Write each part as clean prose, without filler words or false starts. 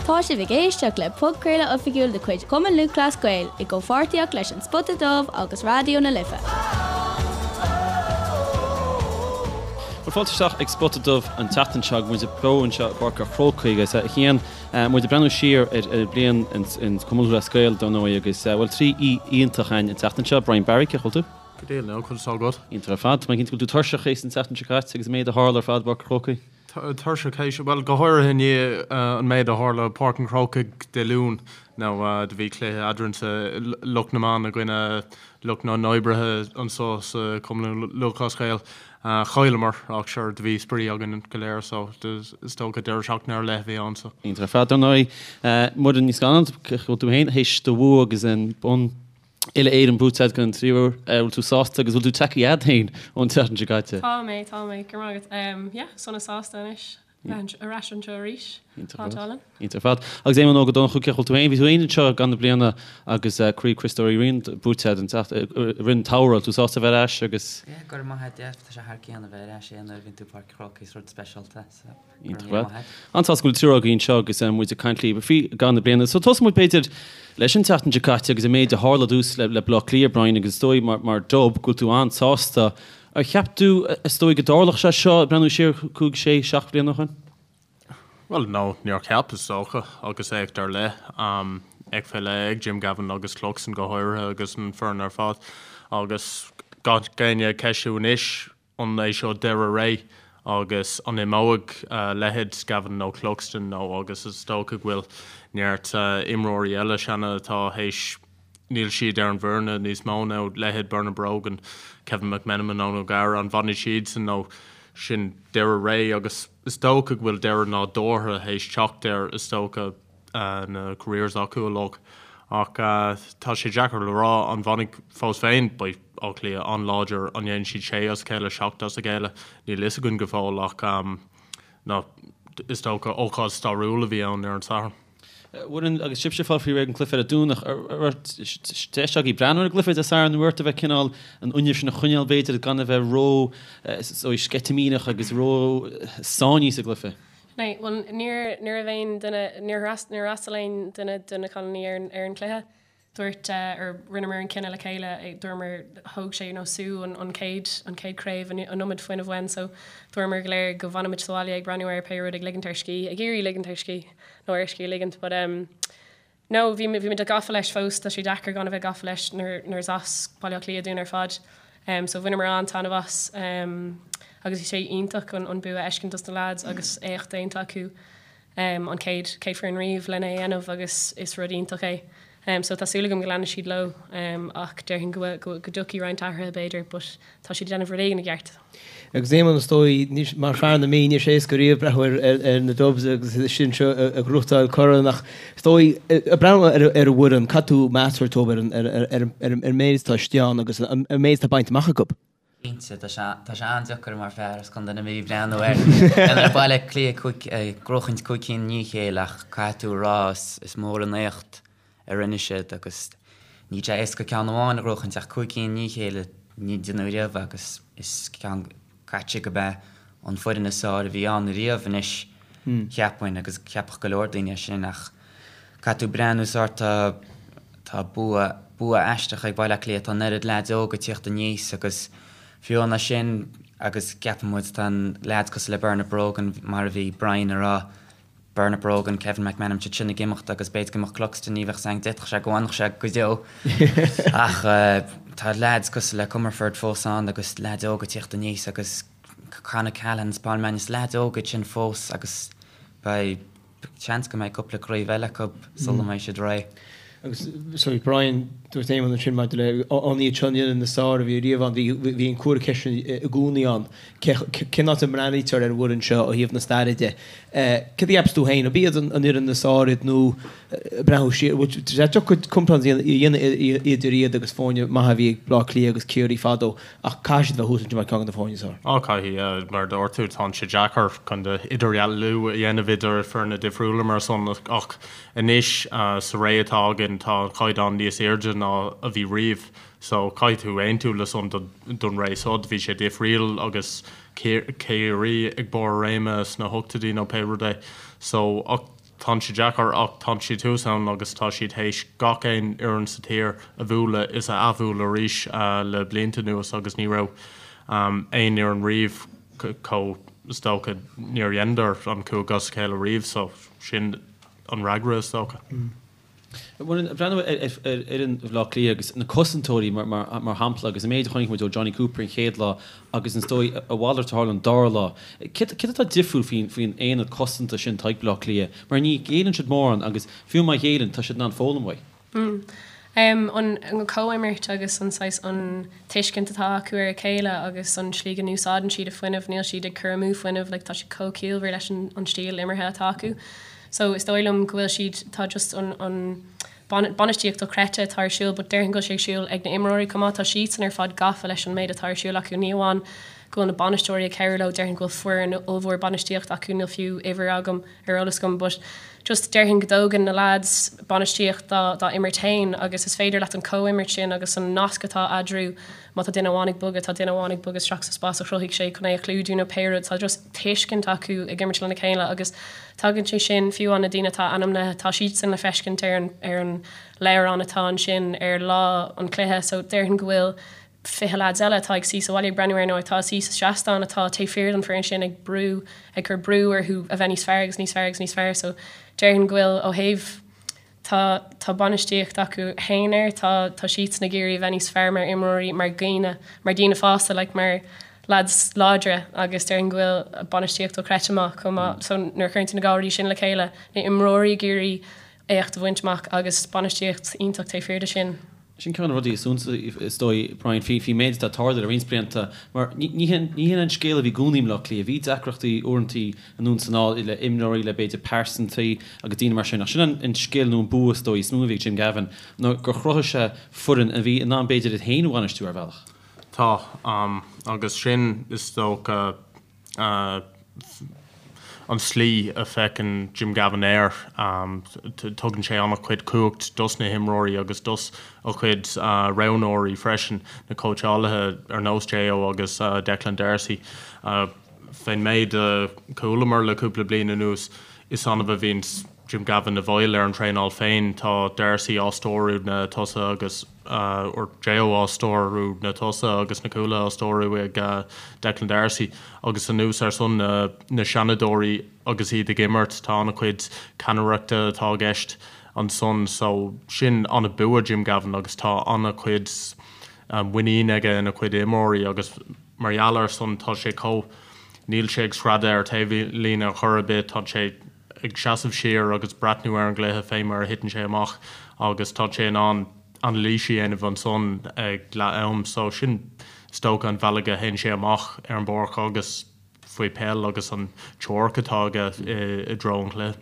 Tá sibh ag éisteacht le podchraoladh oifigiúil de chuid Chumann Lúthchleas Gael i gcomhpháirtíocht leis An Spota Dubh agus Raidió na Life. Bhuel, fáilte isteach ag Spota Dubh an tseachtain seo agus muid beo anseo i bPáirc an Chrócaigh agus a Chian, muid ag breathnú siar ar an bhliain in Cumann Lúthchleas Gael dar ndóigh agus, bhuel, 3 aoi iontach againn an tseachtain seo, Brian Barry, cén chaoi a bhfuil tú? Go diail, now, conas tá agat? Iontach ar fad. Tá mé cinnte go bhfuil tú tuirseach théis an tseachtain seo caite agus an méid a tharla ar fad i bPáirc an Chrócaigh. Tuirseach théis, bhuel, go háirithe i ndiaidh an méid a tharla i Páirc an Chrócaigh Dé Luain, nó do bhí cluiche eadrainnse, lucht na mban i gcoinne lucht na n-oibrithe anso sa Chumann Lúthchleas Gael. Chailleamar, ach sure, do bhí spraoi againn go léir, so is dócha deireadh seachtaine ar leith a bhí ann, so. Iontach ar fad, dar ndóigh. Muireann Ní Scanláin, cén chaoi a bhfuil tú féin théis do bhua agus an bonn Uile-Éireann buaite agat don tríú huair. Bhfuil tú sásta agus bhfuil tú tagtha agat féin ón tseachtain seo caite? Tá mé, tá mé. Go raibh maith agat. Yeah, sona sásta anois bheith ar ais anseo arís. Iontach ar fad. Iontach ar fad. Agus Éamonn Óg Ó Donnchú, cén chaoi a bhfuil tú féin? Bhí tú féin anseo i gcaitheamh na bliana agus Craobh Chriostóir Uí Riain buaite agat an tseacht, i rith an tsamhraidh. Bhfuil tú sásta a bheith ar ais agus. Yeah, go raibh maith agat. Yeah, tá sé thar cionn a bheith ar ais, yeah, nuair a bhíonn tú i Páirc an Chrócaigh, is rud speisialta, so. Iontach ar fad. An-sásta go bhfuil triúr agaibh anseo agus muid ag caint libh faoi i gcaitheamh na bliana. So tosóidh muid b'fhéidir leis an tseachtain seo caite agus an méid a tharla dtús le Baile Átha Cliath, Brian, agus is dóigh mar Dub go bhfuil tú an-sásta. Ar cheap tú is dóigh go dtarlódh sé seo ag breathnú siar 5, 6, 7 bliana ó shin? Bhuel, no, níor cheap, is dócha, agus éacht ar leith, éacht fé leith ag Jim Gavin agus Cluxton go háirithe agus an foireann ar fad. Agus gach éinne ag ceistiú anois, An é seo deireadh ré agus an imeoidh leithéid Gavin nó Cluxton nó agus is dócha go bhfuil neart imreoirí eile seana atá théis níl siad ar an bhfoireann níos mó nó leithéid Bernard Brogan, Kevin McMenamin, Eoin O'Gara, an bhfanfaidh siadsan nó sin deireadh ré agus is dócha go bhfuil deireadh nádúrtha théis teacht air is dócha. na careers acu uilig. Ach tá sé deacair le rá an bhfanfaidh fós féin, beidh Áth Cliath an-láidir, an ndéanfaidh siad sé as a chéile, seacht as a chéile, níl fhios againn go fóill ach ná is dócha ócáid stairiúil a bhí ann ar an Satharn. Mhuireann, agus sibhse ag fáil faoi réir don cluiche ar an Domhnach, an raibh deis agaibh breathnú ar an gcluiche Dé Sathairn, an raibh ort a bheith cineál an fhuinneamh sin a choinneáil b'fhéidir gan a bheith ró sceitimíneach agus ró sáinnithe sa gcluiche? Ní, bhuel, níor, ní raibh aon duine, níor níor fhreastail aon duine de na cailíní ar an, ar an chluiche. Dúirt, or rinneamar an cinneadh le chéile, dúramar, thóg sé, you know, sú an, an chéad, an chéad craobh, an, an iomad fuinnimh uainn so dúramar go léir go bhfanfaimid sa bhaile ag breathnú air pé rud, ag ligint ár scíth, ag iarraidh ligint ár scíth, nó ár scíth a ligint but em, No, bhí, bhí muid gafa leis fós, tá sé deacair gan a bheith gafa leis nuair, nuair is as Baile Átha Cliath dúinn ar fad. So bhaineamar an-taitneamh as agus bhí sé iontach an, an bua a fheiscint dos na lads agus éacht déanta acu an chéad, chéad foireann riamh lena é dhéanamh agus is rud iontach é. So tá súil agam go leanfaidh siad leo ach déarfainn go bhfuil, go, go dtiocfaidh roinnt athruithe b'fhéidir but tá siad ag déanamh rud éigin i gceart. Agus Éamonn, is dóigh, mar fear na Mí, níl sé éasca riamh breathnú ar na Dubs agus sinn anseo ag gnóthachtáil corn ach is dóigh, ag breathnú ar an bhfoireann, caithfidh tú meas a thabhairt dóibh ar an méid atá istigh ann agus an méid atá bainte amach acu. Cinnte, tá sé tá sé an-deacair mar fear as Contae na Mí breathnú ar ar Baile Átha Cliath ag gnóchaint 5 cinn i ndiaidh a chéile ach caithfidh tú a rá is mór an éacht a rinne siad agus níl sé éasca ceann amháin a ghnóchaint ach 5 cinn i ndiaidh a chéile ní deineadh riamh agus is ceann caite go b'é an foireann is fearr a bhí ann riamh anois cheapfainn agus cheapfadh go leor daoine é sin ach caithfidh tú breathnú sórt tá tá bua bua aisteach ag Baile Átha Cliath tá an oiread leaids óga ag tíocht aníos agus fiú amháin sin agus ceapann muid tá an leaids cosúil le Bernard Brogan mar a bhí Brian a rá Bernard Brogan, Kevin McManamon, siad sin ag imeacht agus b'fhéidir go mbeadh Cluxton, ní bheadh a fhios againn, d'fhéadfadh sé go bhfanfadh sé go deo ach tá leaids cosúil le Comerford fós ann agus leaids óga ag tíocht aníos agus Con O'Callaghan is Paul Mannion, leaids óga iad sin fós agus beidh seans go mbeidh cúpla craobh eile acu sula mbeidh siad réidh. Agus, sorry, Brian, dúirt Éamonn ansin maidir le an iad seo an fhoireann is fearr a bhí riamh ann, bhí an comhartha ceiste i gcónaí ann. Cén áit a mbreathnaítear ar an bhfoireann seo ó thaobh na staire de? Céard a cheapas tú féin? Ab iad an fhoireann is fearr iad nó breathnú siar, bhfuil sé deacair comparáid a dhéanamh idir iad agus foirne maithe a bhí ag Bleá Cliath agus Ciarraí fadó ach caithfidh siad bheith thuas ansin mar ceann de na foirne is fearr. Á, caithfidh, mar a dúirt tú, tá sé deacair chun idirdhealú a dhéanamh idir foirne difriúla mar san ach Anois, sa ré atá againn, tá an caighdeán níos airde ná a bhí riamh, so caithfidh tú aontú le san don ré so. Bhí sé difríul agus Ciarraí ag barr a réime sna hochtóidí nó pé rud é. So, ach. Tánn sé deacair ach tánn siad thuas ann agus tá siad théis gach aon fhoireann sa tír a bhualadh is a athbhualadh arís le blianta anuas agus ní raibh aon fhoireann riamh chomh, is dócha, níor dheineadar an chúig as a chéile riamh so sin an fhreagra is dócha. Muireann, ag breathnú ar fhoireann Bhaile Átha Cliath agus na cosantóirí mar shampla agus an méid a chonaic muid ó Jonny Cooper an chéad lá agus is dóigh a mhalairt a tharla an dara lá. Céard atá difriúil faoin aonad cosanta sin atá ag Baile Átha Cliath? Mar ní ghéilleann siad mórán agus fiú má ghéilleann tá siad in ann foghlaim uaidh. An comhimirt agus an saghas an tuiscint atá acu ar a chéile agus an slí go n-úsáideann siad a fuinneamh, níl siad ag cur amú fuinnimh, like tá siad chomh ciallmhar leis an stíl imeartha atá acu. So is dóigh liom go bhfuil siad, tá just an, an bainistíocht dochreidte atá ar siúl but déarfainn go bhfuil sé ag siúl ag na imreoirí chomh maith, tá siadsan ar fad gafa leis an méid atá ar siúl acu, ní amháin go bhfuil na bainisteoirí ag cabhrú leo, déarfainn go bhfuil foireann ollmhór bainistíocht acu, níl fiú uimhir agam ar eolas agam but just déarfainn go dtógann na lads bainistíocht dá, dá imirt féin agus is féidir leat an comhimirt sin agus an nasc atá eadarthu Má tá duine amháin ag bogadh, tá duine amháin ag bogadh isteach sa spás a chruthaigh sé chun é a chlúdú nó pé rud. Tá just tuiscint acu ag imirt lena chéile agus tagann sé sin, fiú amháin na daoine atá ainmnithe, tá siadsan le feiscint ar an ar an leabhrán atá ansin ar lá an chluiche. So déarfainn go bhfuil 20 lads eile atá ag suí sa bhaile ag breathnú air nó atá ag suí sa seastán atá taobh thiar den foireann sin ag brú, ag cur brú orthu a bheith níos fearr agus níos fearr agus níos fearr. So déarfainn go bhfuil ó thaobh Tá, tá bainistíocht acu fhéin air, tá, tá siadsan ag iarraidh a bheith níos fearr mar imreoirí, mar dhaoine, mar daoine fásta, like mar lads láidre agus déarfainn go bhfuil bainistíocht dochreidte maith chomh maith. So nuair a chuireann tú na dhá rudaí sin le chéile, na imreoirí ag iarraidh éacht a bhaint amach agus bainistíocht iontach taobh thiar de sin. Sin ceann de na rudaí is suntasaí, is dóigh, Brian, faoin méid atá ag tarlú le roinnt blianta, mar ní hin an scéal a bhí i gcónaí i mBleá Cliath. Bhí deacrachtaí uaireantaí anonn is anall le imreoirí, le b'fhéidir pearsantaí agus daoine mar sin, ach sin an scil nó an bua, is dóigh, is mó a bhí ag Jim Gavin, ná gur chruthaigh sé foireann a bhí in ann b'fhéidir iad féin a bhainistiú ar bhealach. Tá, agus sin, is dócha, an tslí a bhfeiceann Jim Gavin air. Tugann sé an-chuid cumhacht dos na himreoirí agus dos a chuid roghnóirí freisin, na cóitseálaithe ar nós J.O. agus Declan Darcy. Fén méid a chualamar le cúpla bliain anuas, is annamh a bhíonns Jim Gavin i bhfeighil ar an traenáil féin. Tá Darcy á stiúradh na tosaithe agus. or J.O. á stiúradh na tosaithe agus na cúlaithe á stiúradh ag Declan Darcy agus anuas ar san na seanadóirí agus iad ag imirt tá an-chuid ceannaireachta atá i gceist ansan so sin an-bua Jim Gavin agus tá an-chuid muinín aige ina chuid imreoirí agus mar gheall ar san tá sé chomh níl sé ag screadadh ar taobhlíne ar chor ar bith tá sé ag seasamh siar agus breathnú ar an gcluiche fé mar a thiteann sé amach agus tá sé in ann anailís a dhéanamh ansan ag leath am. So sin is dócha an bhealaigh a théann sé amach ar an bpáirc agus faoi peil agus an teoiric atá aige i dtreo an chluiche.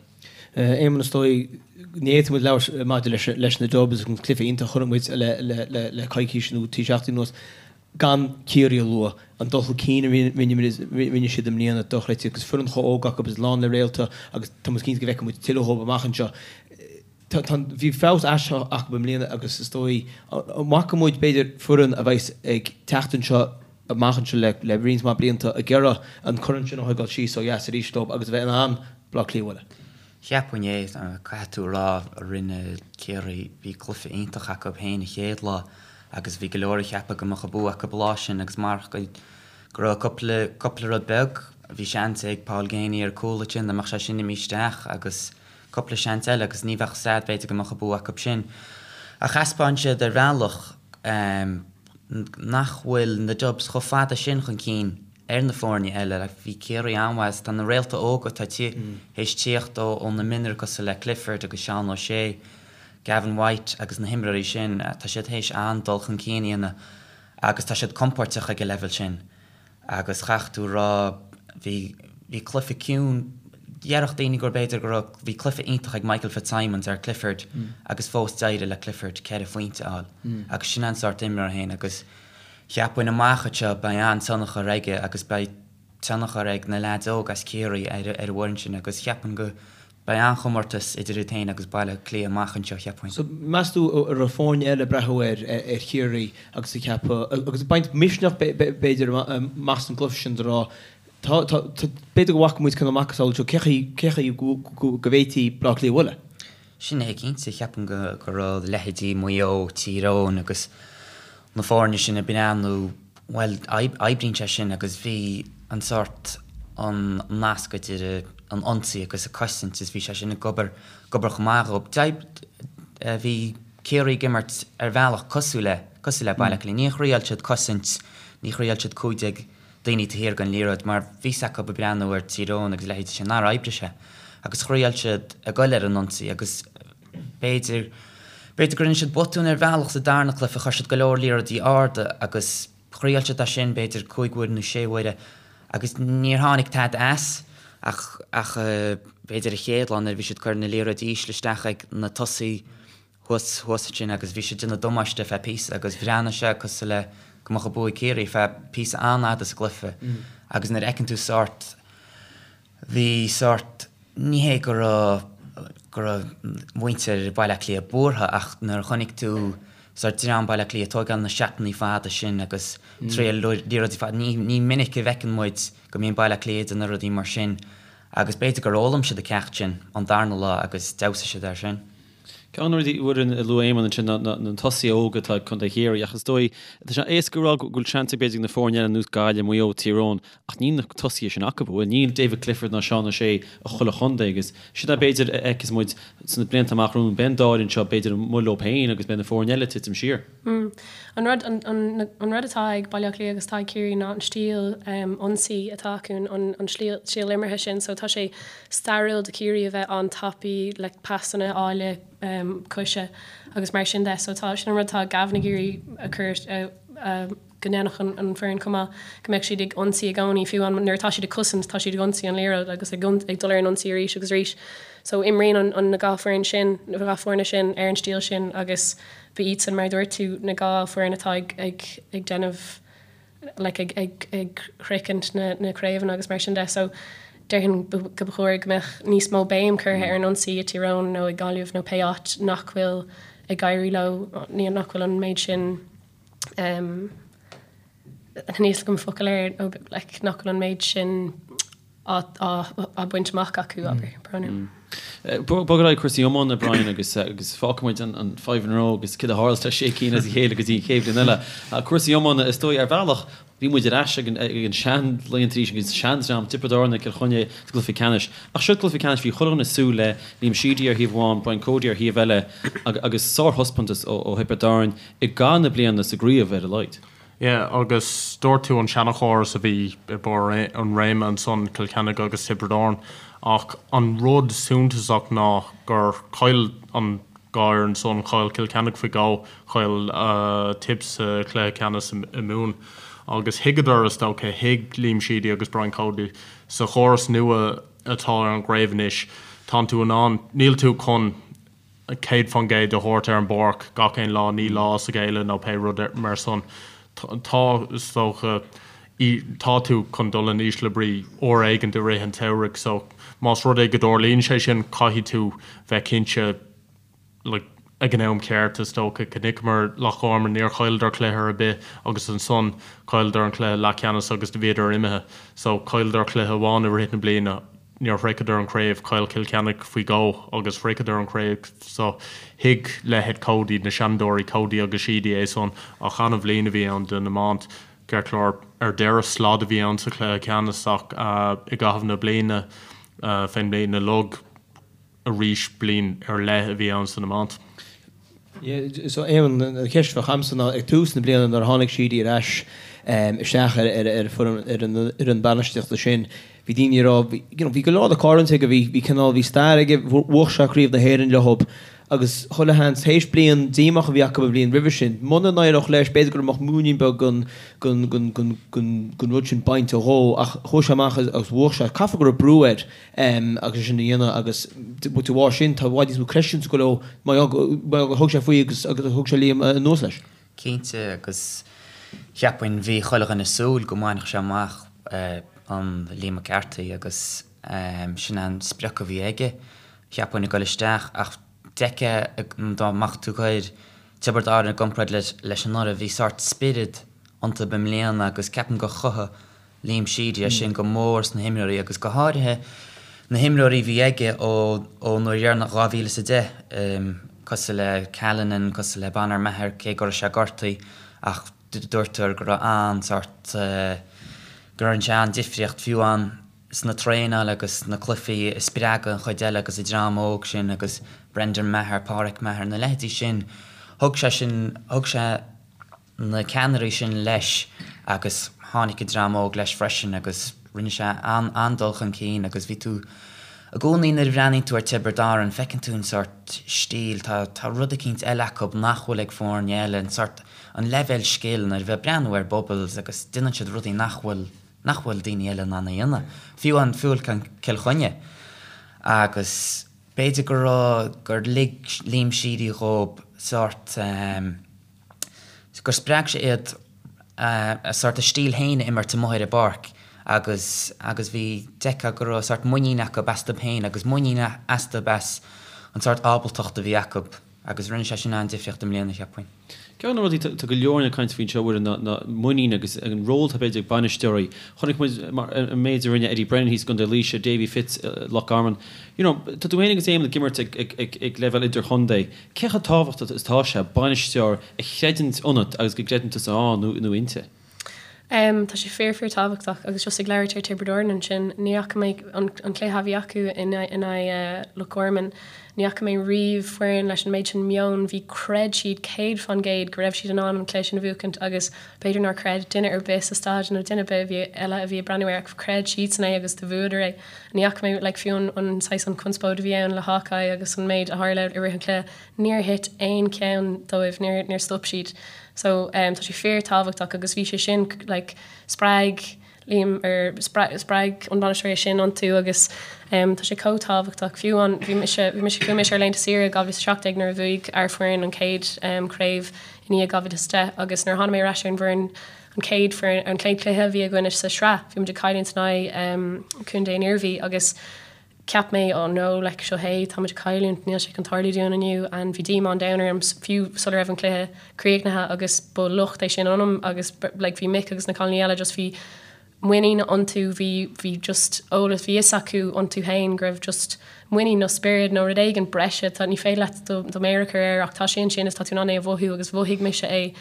Éamonn, is dóigh, ní fhéadfaidh muid labhairt maidir leis na Dubs agus an cluiche iontach a chonaic muid le coicís nó trí seachtaine anuas. gan Ciarraí a lua, an dul chun cinn a rinne siad i mbliana, dochreidte, agus foireann chomh óg acu agus lán le réalta agus tá muid cinnte go bhfeicfidh muid tuilleadh dhóibh amach anseo. Tá, bhí feabhas aisteach acu i mbliana agus is dóigh, an bhfaca muid, b'fhéidir, foireann a bheas ag teacht anseo amach anseo le roinnt mhaith blianta ag iarraidh an corn sin a thógáil síos ó dheas arís dóibh agus a bheith in ann Baile Átha Cliath a bhualadh. Cheapfainn é, caithfidh tú a rá, rinne Ciarraí, bhí cluiche iontach acu féin an chéad lá agus bhí go leor ag ceapadh go mbeadh an bua acu an lá sin agus marach go raibh cúpla, cúpla rud beag, bhí seans ag Paul Geaney ar cúl ansin, dá mbeadh sé sin imithe isteach agus cúpla seans eile agus ní bheadh stad b'fhéidir go mbeadh an bua acu sin. Ach thaispeáin siad ar bhealach nach bhfuil na Dubs chomh fada sin chun cinn ar na foirne eile. Like, bhí Ciarraí an-mhaith agus tá na réalta óga atá théis tíocht ó na mionúir cosúil le Clifford agus Seán O'Shea, Gavin White agus na himreoirí sin, tá siad théis an-dul chun cinn a dhéanamh agus tá siad compóirteach ag an leibhéal sin. Agus chaithfeadh tú a rá, bhí, bhí cluiche ciúin, déarfadh daoine gur b'fhéidir go raibh, bhí cluiche iontach ag Michael Fitzsimons ar Clifford agus fós d'éirigh le Clifford ceithre phointe a fháil. Agus sin an sórt imreoir féin agus Cheapfainn amach anseo beidh an-tionchar aige agus beidh tionchar ag na leaids óga as Ciarraí ar an bhfoireann sin agus cheapfainn go beidh an-chomórtas idir iad féin agus Baile Átha Cliath amach anseo, cheapfainn. So, meas tú an raibh foirne eile ag breathnú ar ar Chiarraí agus ag ceapadh, agus ag baint misneach b'fhéidir amach as an gcluiche sin de rá. Tá, tá, tá, b'fhéidir go bhfaca muid cineál macasamhail seo, cé chaoi, cé chaoi go, go, go bhféadfaí Baile Átha Cliath a bhualadh? Sin é cinnte, cheapfainn go, go raibh leithéidí Maigh Eo, Tír Eoghain agus na foirne sin ag breathnú, bhuel, oibríonn sé sin agus bhí an sórt, an nasc idir an ionsaí agus an cosaint is bhí sé sin ag obair, ag obair chomh maith dhóibh. Bhí Ciarraí ag imirt ar bhealach cosúil le, cosúil le Baile Átha Cliath. Níor thriail siad cosaint, ní thriail siad 15 daoine taobh thiar den liathróid mar bhí 's acu ag breathnú ar Tír Eoghain agus a leithéidí sin nár oibrigh sé agus thriail siad ag goil ar an ionsaí agus b'fhéidir, b'fhéidir go rinne siad botún ar bhealach sa darna cluiche, chuir siad go leor liathróidí arda agus thriail siad é sin b'fhéidir cúig uaire nó sé huaire agus níor tháinig tada as ach, ach b'fhéidir an chéad lá nuair a bhí siad ag cur na liathróidí ísle isteach ag na tosaithe thuas, thuas ansin agus bhí siad ag déanamh damáiste ar feadh píosa agus bhreathnaigh sé cosúil le go mbeadh an bua ag Ciarraí ar feadh píosa an-fhada sa gcluiche agus nuair a fheiceann tú sórt, bhí sórt, ní hé go raibh, go raibh muintir Bhaile Átha Cliath buartha ach nuair a chonaic tú sórt dream Bhaile Átha Cliath ag tógáil na seatannaí fada sin agus triail liathróidí fada, ní, ní minic a bhfeiceann muid go mbíonn Baile Átha Cliath ag déanamh rudaí mar sin agus b'fhéidir gur fhoghlaim siad an ceacht sin an darna lá agus d'fheabhsaigh siad air sin. Ceann de na rudaí a bhfuair a luaigh Éamonn ansin ná na tosaithe óga atá ag Contae Chiarraí ach is dóigh, tá sé éasca a rá go bhfuil seans ag b'fhéidir ag na foirne eile ar nós Gaillimh, Maigh Eo, Tír Eoghain ach níl na tosaithe sin acu, bhuel níl David Clifford ná Seán O'Shea i chuile chontae agus sin é b'fhéidir a fheicfeas muid sna blianta amach romhainn, beidh an dá fhoireann seo b'fhéidir amuigh leo féin agus beidh na foirne eile ag titim siar. An rud, an rud atá ag Baile Átha Cliath agus atá ag Ciarraí ná an stíl ionsaí atá acu, an stíl imeartha sin. So tá sé stairiúil do Chiarraí a bheith an-tapaidh le pasanna áille coise agus mar sin de. So tá, sin an rud atá Gavin ag iarraidh a chur, go ndéanfadh an foireann chomh maith, go mbeadh siad ag ionsaí i gcónaí, fiú nuair atá siad ag cosaint, tá siad ag ionsaí an liathróid agus ag dul ar an ionsaí arís agus arís. So imríonn an, na dhá foireann sin, na dhá foirne sin ar an stíl sin agus ba iadsan, mar a dúirt tú, na dhá foireann atá ag, ag, ag déanamh, like, ag, ag, ag shroichint na, na craobhanna agus mar sin de. So déarfainn go ba chóir go mbeadh níos mó béim curtha ar an ionsaí i Tír Eoghain nó i Gaillimh nó pé áit nach bhfuil ag éirí leo, nach bhfuil an méid sin um, níl 'fhios agam focal air nó like, nach bhfuil an méid sin á baint amach acu, abair, brón. Bog ar aghaidh cúrsaí iomána, Brian, agus agus fágfaidh muid an five in a row agus céard a tharla le sé cinn as a chéile go dtí an chéad bhliain eile. Cúrsaí iomána, is dóigh, ar bhealach, bhí muid ar ais ag an ag an sean-laethanta arís agus seandream, Tiobraid Árann Cill Chainnigh sa gcluiche ceannais. Ach seo cluiche ceannais, bhí chuile dhuine ag súil le Liam Sheedy ar thaobh amháin, Brian Cody ar thaobh eile agus sárthaispeántas ó Thiobraid Árann i gcaitheamh na bliana sa gcraobh ar a laghad. Yeah, agus dúirt tú an seanchóras a bhí i barr an réime ansan, Cill Chainnigh agus Tiobraid Árann, ach an rud suntasach ná gur chaill an dhá fhoireann san, chaill Cill Chainnigh faoi dhó, chaill Tipp sa chluiche ceannais i Mumhain. Agus thuigeadar, is dócha, thuig Liam Sheedy agus Brian Cody, sa chóras nua atá ar an gcraobh anois, tánn tú in ann, níl tú chun, 100% a thabhairt ar an bpáirc gach aon lá, ní lá as a chéile nó pé rud mar san. Tá, is dócha, tá tú chun dul in ísle brí uair éigint i rith an tsamhraidh so más rud é go dtarlaíonn sé sin caithfidh tú bheith cinnte like ag an am ceart is dócha. Chonaiceamar Loch Garman, níor chailleadar cluiche ar bith agus ansan chailleadar an cluiche leathcheannais agus do bhíodar imithe. So chailleadar cluiche amháin i rith na bliana. Níor shroicheadar an chraobh, chaill Cill Chainnigh faoi dhó agus shroicheadar an chraobh so thuig leithéid Cody, na seanadóirí Cody agus Sheedy é san ach an-bhliain a bhí ann don iomáint. Ceart go leor, ar deireadh slad a bhí ann sa chluiche ceannais ach i gcaitheamh na bliana, fén mbliain uilig, arís bliain ar leith a bhí ann san iomáint. Yeah, so Éamonn, an cheist a bheadh a'msa ná ag tús na bliana nuair a tháinig Sheedy ar ais isteach ar ar foireann ar an fhoireann bainistíochta sin, bhí daoine ag rá, you know, bhí go leor de choimhlint aige, bhí bhí cineál, bhí stair aige, bhuaigh sé Craobh na hÉireann leob agus chuile sheans, théis bliain díomách a bhí acu an bhliain roimhe sin, muna n-éireodh leis, b'fhéidir go mbeadh múinín beag den den den den den den rud sin bainte dhó ach chuaigh sé amach agus bhuaigh sé. Caithfidh go raibh brú air. agus é sin a dhéanamh agus de bharr sin tá i bhfad níos mó creidiúint ag dul leo mar gur thug sé faoi agus agus thug sé Liam anuas leis. Cinnte agus cheapfainn bhí chuile dhuine ag súil go mbainfeadh sé amach an Liam McCarthy agus sin an sprioc a bhí aige cheapfainn ag dul isteach ach d'fheicfeá dá mbeadh tú ag cur Tiobraid Árann i gcomparáid leis anuraidh bhí sórt spiorad iontu i mbliana agus ceapaim gur chothaigh. Liam Sheedy é sin go mór sna himreoirí agus go háirithe na himreoirí a bhí aige ó ón uair dheireanach 2010, cosúil le Callanan, cosúil le Bonner Maher, cé go raibh sé gortaithe ach dúirtear go raibh an-sórt, go rinne sé an-difríocht fiú amháin sna traenáil agus sna cluichí a spreagadh an chuid eile agus an dream óg sin agus Brendan Maher, Páraic Maher, na leithéidí sin, thug sé sin, thug sé na ceannairí sin leis agus tháinig an dream óg leis freisin agus rinne sé an-dul chun cinn agus bhí tú i gcónaí nuair a bhreathnaíonn tú ar Tiobraid Árann feiceann tú an sórt stíl, tá tá rud eicínt eile acu nach bhfuil ag foirne eile, an sórt, an leibhéal scil nuair a bheith ag breathnú ar Bubbles agus déanann siad rudaí nach bhfuil nach bhfuil daoine eile in ann a dhéanamh, fiú an fiú Cill Chainnigh agus b'fhéidir go raibh gur lig Liam Sheedy dhóib sórt eh. gur spreag sé iad a sórt a stíl féin a imirt amuigh ar an bpáirc agus agus bhí d'fheicfeá go raibh sórt muinín acu astu féin agus muinín astu as an sórt ábaltacht a bhí acu agus rinne sé sin an-difríocht i mbliana, cheapfainn. Ceann de na rudaí, tá go leor ag caint faoin seo, a Mhuireann, ná ná muinín agus an ról atá b'fhéidir ag bainisteoirí. Chonaic muid mar an méid a rinne Eddie Brennan thíos i gContae Laoise, Davy Fitz i Loch Garman. You know, tá tú féin agus Éamonn ag imirt ag ag ag ag leibhéal idirchontae. Cé chomh tábhachtach is atá sé bainisteoir a chreideann ionat agus go gcreideann tusa ann nó inti? Tá sé fíor fíor tábhachtach agus just ag labhairt ar Tiobraid Árann ansin, ní fhaca mé an cluiche a bhí acu in aghaidh Loch Garman, ní fhaca mé riamh foireann leis an méid sin meoin, bhí chreid siad 100% go raibh siad in ann an cluiche sin a bhuachaint agus b'fhéidir nár chreid duine ar bith sa staid nó duine ar bith a bhí eile a bhí ag breathnú air ach chreid siadsan é agus do bhuadar é. Ní fhaca mé, like, fiú an, an saghas, an conspóid a bhí ann le Hawkeye agus an méid a tharla i rith an chluiche, níor thit aon cheann dóibh, níor, níor stop siad. So, um, tá sé fíor tábhachtach agus bhí sé sin, like, spreag Liam, or spreag, spreag an bainisteoir é sin iontu agus, um, tá sé chomh tábhachtach. Fiú an, bhí mise, bhí mise, chuaigh mise ar laethanta saoire i 2017 nuair a bhuaigh ár foireann an chéad, um, craobh i ndiaidh 2010 agus nuair a tháinig mé ar ais ar an bhfoireann, An chéad foireann, an chéad chluiche a bhí againne sa sraith, bhí muid ag cailliúint in aghaidh Contae an Iarmhí agus cheap mé oh no, like seo é, tá muid ag cailliúint, níl sé chun tarlú dúinn inniu and bhí díomá an domhain orm fiú sula raibh an cluiche críochnaithe agus ba locht é sin ionam agus like bhí Mick agus na cailíní eile just bhí muinín iontu, bhí, bhí just eolas, bhí fhios acu iontu féin go raibh just muinín nó spiorad nó rud éigin breise, tá, ní féidir leat do, do mhéar a chur air ach tá sé ansin is tá tú in ann é a mhothú agus mhothaigh mise é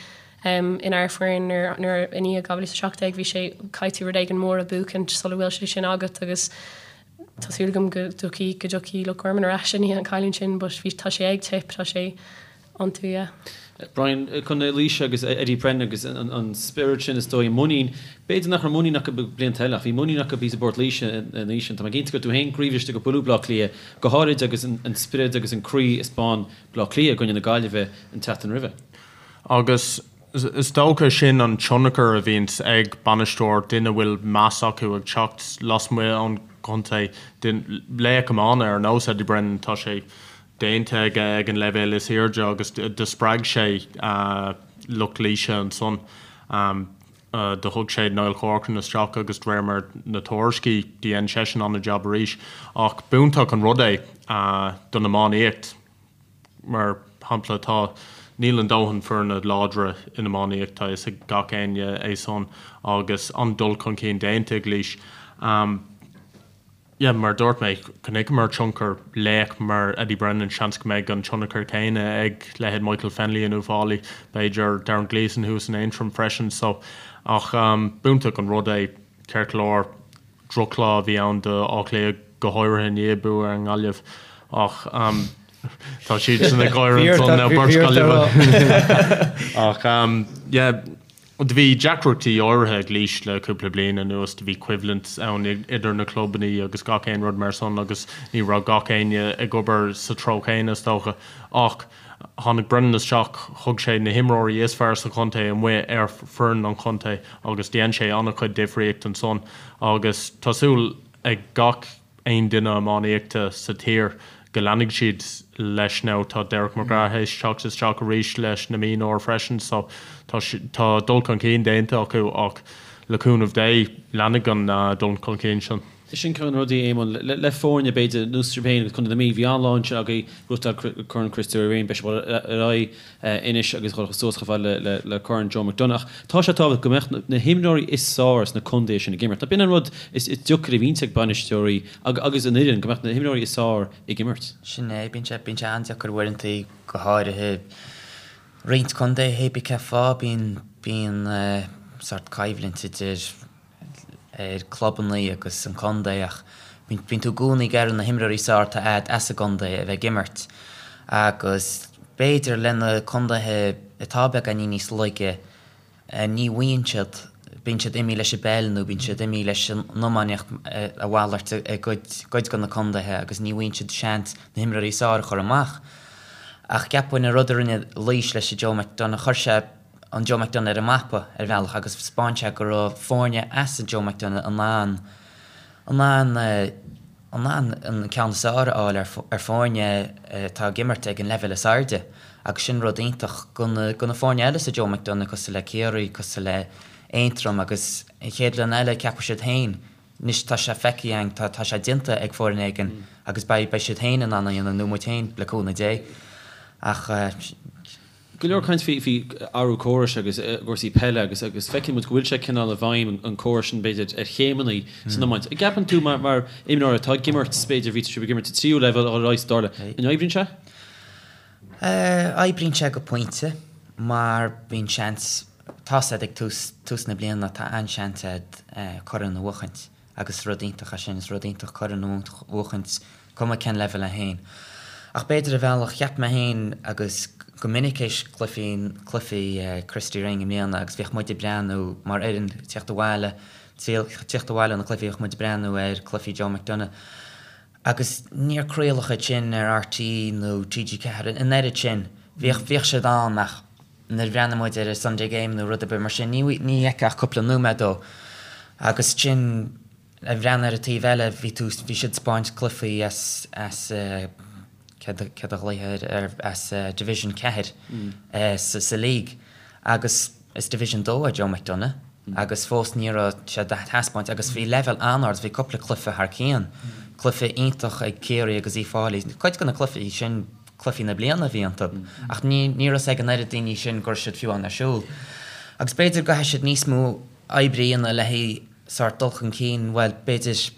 inár foireann nuair, nuair, i ndiaidh 2017 bhí sé, caithfidh tú rud éigin mór a bhuachaint sula bhfuil sé sin agat agus tá súil agam go dtiocfaidh, go dtiocfaidh Loch Garman ar ais i ndiaidh an chailliúint sin but bhí, tá sé ag tip, tá sé iontu, yeah. Brian, Contae Laoise agus Eddie Brennan agus an spiorad sin is dóigh, muinín, b'fhéidir nach raibh muinín acu blianta eile ach bhí muinín acu thíos i bPort Laoise an oíche sin. Tá mé cinnte go raibh tú féin croíbhriste gur buaileadh Bleá Cliath, go háirid agus an spiorad agus an croí a 'speáin Bleá Cliath i gcoinne na Gaillimhe an tseachtain roimhe. Agus is dócha sin an tionchar a bhíonns ag bainisteoir, duine a bhfuil meas acu ag teacht lasmuigh ón gcontae, laoch iomána ar nós Eddie Brennan, tá sé déanta aige ag an leibhéal is airde agus do spreag sé lucht Laoise ansan. Do thug sé Niall Corcoran isteach agus de réir mar na tuairiscí dhein seisean an-jab arís. Ach b'iontach an rud é don iománaíocht. Mar shampla tá, níl a ndóthain foirne láidre in iománaíocht, tá fhios ag gach éinne é san agus an-dul chun cinn déanta ag Laois. Yeah, mar a dúirt mé, chonaiceamar tionchar laoch mar Eddie Brennan, seans go mbeidh an tionchar céanna ag leithéid Michael Fennelly in Uíbh Fhailí, b'fhéidir Darren Gleeson thuas in Aontroim freisin so ach b'iontach an rud é ceart go leor drochlá a bhí ann do Áth Cliath go háirithe i ndiaidh bua ar an nGaillimh ach tá siadsan ag gáire ansan nó beirt Gaillimhe ach yeah Do bhí deacrachtaí áirithe ag Laois le cúpla bliain anuas, do bhí coimhlint ann idir na clubannaí agus gach aon rud mar san agus ní raibh gach éinne ag obair sa treo chéanna is dócha. Ach tháinig Brennan isteach, thug sé na himreoirí is fearr sa chontae amuigh ar foireann an chontae agus dhein sé an-chuid difríocht ansan agus tá súil ag gach aon duine iománaíochta sa tír go leanfaidh siad leis now tá Derek McGrath théis teacht isteach arís leis na mionúir freisin so tá tá dul chun cinn déanta acu ach le cúnamh Dé leanfaidh an dul chun cinn sin. Sin ceann de na rudaí, Éamonn, le foirne, b'fhéidir, ar nós sibh féin agus Contae na Mí, bhí an-lá ansin agaibh, gnóthachtáil Corn Christy Ring, beidh sibh ar aghaidh anois agus dhul suas chomh fada le Corn Joe McDonagh. Ach tá sé tábhachtach go mbeadh na himreoirí is fearr sna contaetha sin ag imirt. B'in an rud is deacair a bhíonns ag bainisteoirí agus an fhoireann, go mbeadh na himreoirí is fearr ag imirt. Sin é, bíonn sé, bíonn sé an-deacair uaireanta, go háirithe roinnt contaetha, hé bí cén fáth, bíonn, bíonn sórt coimhlint idir ar clubanna agus an contae ach bíonn tú i gcónaí ag iarraidh na himreoirí is fearr atá a'd as an gcontae a bheith ag imirt agus b'fhéidir le na contaetha atá beagáinín níos laige ní bhfaigheann siad, bíonn siad imithe leis an bpeil nó bíonn siad imithe leis an iománaíocht a mhalairt i gcuid de na contaetha agus ní bhfaigheann siad seans na himreoirí is fearr a chur amach. Ach cheapfainn an rud a rinne Laois leis an Joe McDonagh, chuir sé an Joe McDonagh ar an mapa ar bhealach agus 'spáin sé go raibh foirne as an Joe McDonagh in ann in ann in ann an ceann is fearr a fháil ar foirne atá ag imirt ag an leibhéal is airde agus sin rud iontach go na go na foirne eile sa Joe McDonagh cosúil le Ciarraí, cosúil le Aontroim agus an chéad bhliain eile ceapfaidh siad féin anois tá sé feicthe againn tá tá sé déanta ag foireann éigin agus beidh beidh siad féin in ann a dhéanamh nó muid féin le cúnamh Dé ach Go leor caint faoi athrú córais agus cúrsaí peile agus agus feiceann muid go bhfuil sé cineál i bhfeidhm an córas sin b'fhéidir ar chéimeanna san iomáint. An gceapann tú mar mar imreoir atá ag imirt b'fhéidir bhí sibh ag imirt sa tríú leibhéal ar aghaidh sa dara an oibríonn sé? Oibríonn sé go pointe mar bíonn seans tá's a'd ag tús tús na bliana tá an-seans a'd corn a bhuachaint. Agus rud iontach é sin, is rud iontach corn a bhuachaint, cuma cén leibhéal é féin. Ach b'fhéidir ar bhealach, cheap mé féin agus go minic théis cluichí, cluichí Christy Ring i mbliana agus bhíodh muid ag breathnú mar fhoireann, tíocht abhaile, tíocht abhaile ó na cluichí bhíodh muid ag breathnú ar cluichí Joe McDonagh agus níor craoladh iad sin ar RTÉ nó TG4 an oiread sin. Bhíodh, bhíodh siad ann ach nuair a bhreathnaigh muid ar an Sunday Game nó rud ar bith mar sin, ní fheicfeá ach cúpla nóiméad dó. Agus ansin ag breathnú ar an taobh eile, bhí tú, bhí siad ag 'spáint cluichí as, as, céard a, céard a ghlaoithe air, as Division 4 sa, sa League. Agus is Division 2 é Joe McDonagh agus fós ní raibh sé á thaispeáint agus bhí leibhéal an-ard, bhí cúpla cluiche thar cionn, cluiche iontach ag Ciarraí agus Uíbh Fhailí, cuid de na cluichí sin, cluichí na bliana a bhí iontu, ach ní raibh 'fhios ag an oiread daoine sin go raibh siad fiú ann ar siúl. Agus b'fhéidir go gcaithfidh siad níos mó oibre a dhéanamh le haghaidh sórt dul chun cinn, bhuel, b'fhéidir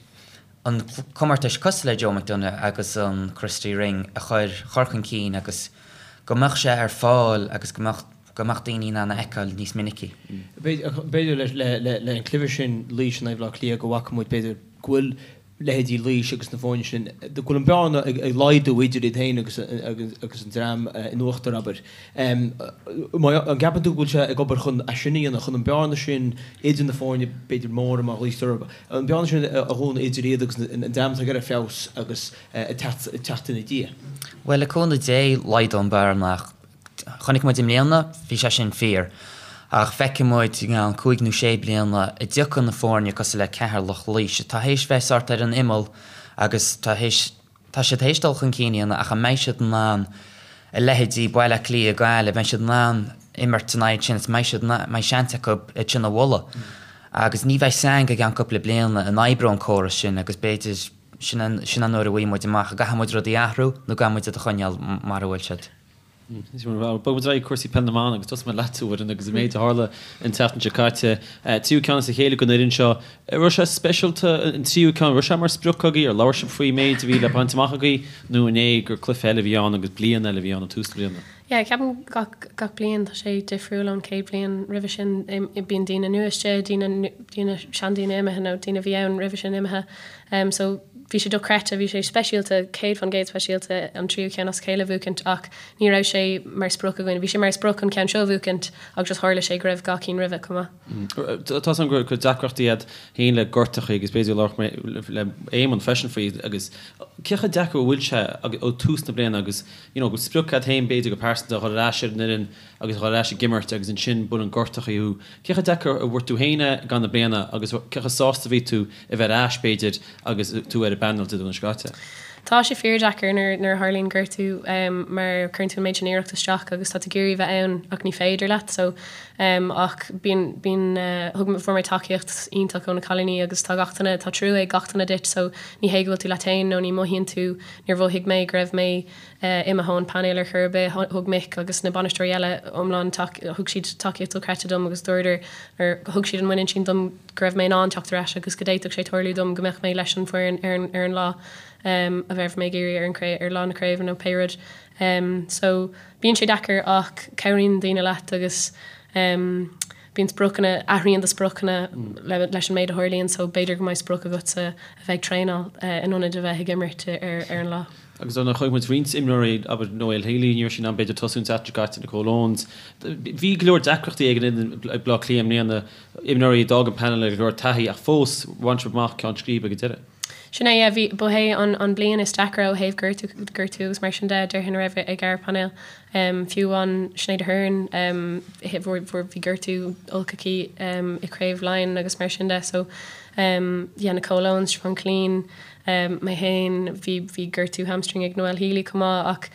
an comórtais cosúil le Joe McDonagh agus an Christy Ring a chur chur chun cinn agus go mbeadh sé ar fáil agus go mbeadh go mbeadh daoine in ann a fheiceáil níos minicí. B'fhéidir le an cluiche sin Laois in aghaidh Bhaile Átha Cliath go bhfaca muid b'fhéidir go bhfuil leithéidí Laois agus na foirne sin, go bhfuil an bearna ag laghdú idir iad féin agus agus an dream in uachtar, abair. An gceapann tú go bhfuil sé ag obair chun é sin a dhéanamh, chun an bearna sin idir na foirne, b'fhéidir móra mar ghlaoitear orthu, an bearna sin a dhúnadh idir iad agus an dream atá ag iarraidh feabhas agus ag teacht ina diaidh? Bhuel, le cúnamh Dé, laghdóidh an bearna ach Chonaic muid i mbliana, bhí sé sin fíor. Ach feicfidh muid i gceann cúig nó sé bliana an dtiocfaidh na foirne cosúil le Ceatharlach, Laois, atá théis bheith sórt ar an imeall agus tá théis, tá siad théis dul chun cinn a dhéanamh ach an mbeidh siad in ann a leithéidí Baile Átha Cliath, Gaillimh, mbeidh siad in ann imirt in aghaidh sin is mbeidh siad, mbeidh seans acu iad sin a bhualadh. Agus ní bheidh 'fhios a'inn go gceann cúpla bliana an oibreoidh an córas sin agus b'fhéidir sin an, sin an uair a bhfaighidh muid amach an gcaithfidh muid rudaí a athrú nó an gcaithfidh muid iad a choinneáil mar a bhfuil siad. Bogfaidh muid ar aghaidh cúrsaí peil na mban agus tosóidh mé leat, a Mhuireann, agus an méid a tharla an tseachtain seo caite. Tríú ceann as a chéile don fhoireann seo. An raibh sé speisialta an tríú ceann? An raibh sé mar sprioc agaibh? Ar labhair sibh faoi méid a bhí le baint amach agaibh nó an é gur cluiche eile a bhí ann agus bliain eile a bhí ann ag tús na bliana? Yeah, ceapaim gach gach bliain tá sé difriúil ón chéad bhliain roimhe sin. Bíonn daoine nua istigh, daoine daoine seandaoine imithe nó daoine a bhí ann roimhe sin imithe. So bhí sé dochreidte, bhí sé speisialta, 100% speisialta an tríú ceann as a chéile a bhuachaint ach ní raibh sé mar sprioc againn. Bhí sé mar sprioc an ceann seo a bhuachaint ach just tharla sé go raibh gach cinn roimhe chomh maith. Tá 's agam go raibh deacrachtaí a'd féin le gortachaí agus b'fhéidir labhróidh mé le Éamonn freisin faoi agus cé chomh deacair a bhfuil sé ó tús na bliana agus you know go bhfuil sprioc a'd féin b'fhéidir go pearsanta a dhul ar ais ar an fhoireann agus a dhul ar ais ag imirt agus ansin buaileann gortachaí thú. Cé chomh deacair a bhfuair tú féin é i gcaitheamh na bliana agus cé chomh sásta a bhí tú a bheith ar ais, b'fhéidir, agus tú ar an bpainéal Dé Domhnaigh seo caite? Tá sé fíordheacair nuair nuair a tharlaíonn gortú mar cuireann tú an méid sin iarracht isteach agus tá tú ag iarraidh bheith ann ach ní féidir leat so ach bíonn bíonn thug fuair mé tacaíocht iontach ó na cailíní agus tá gach duine tá trua ag gach duine duit so ní hé go bhfuil tú leat féin nó ní mothaíonn tú níor mhothaigh mé go raibh mé imithe ón painéal ar chor ar bith. Thug Mick agus na bainisteoirí eile iomlán thug siad tacaíocht dochreidte dom agus dúradar or thug siad an muinín sin dom go raibh mé in ann teacht ar ais agus go d'fhéadfadh sé tarlú dom go mbeadh mé leis an bhfoireann ar an ar an lá a bheadh mé ag iarraidh ar an craobh ar lá na craoibhe nó pé rud. So bíonn sé deacair ach cabhraíonn daoine leat agus bíonn spriocanna, athraíonn do spriocanna leis an méid a tharlaíonn so b'fhéidir go mbeidh sprioc agatsa a bheith ag traenáil in ionad a bheith ag imirt ar ar an lá. Agus dar ndóigh chonaic muid roinnt imreoirí, abair Noelle Healy, ní raibh sí in ann b'fhéidir tosú an tseachtain seo caite, Nicole Owens. Bhí go leor deacrachtaí ag an fhoireann ag Bleá Cliath i mbliana, imreoirí a d'fhág an painéal le go leor taithí ach fós bhain siad amach ceann scríbe ag an deireadh. Sin é, yeah, bhí, ba é an, an bliain is deacra ó thaobh gortú, gortú agus mar sin de, déarfainn a raibh ag ár bpainéal. Fiú amháin Sinéad Aherne, fuair, fuair, bhí gortú olc aici i Craobh Laighean agus mar sin de so, yeah, Nicole Owens, Siobhán Killeen, Mé féin, bhí, bhí gortú hamstring ag Noelle Healy chomh maith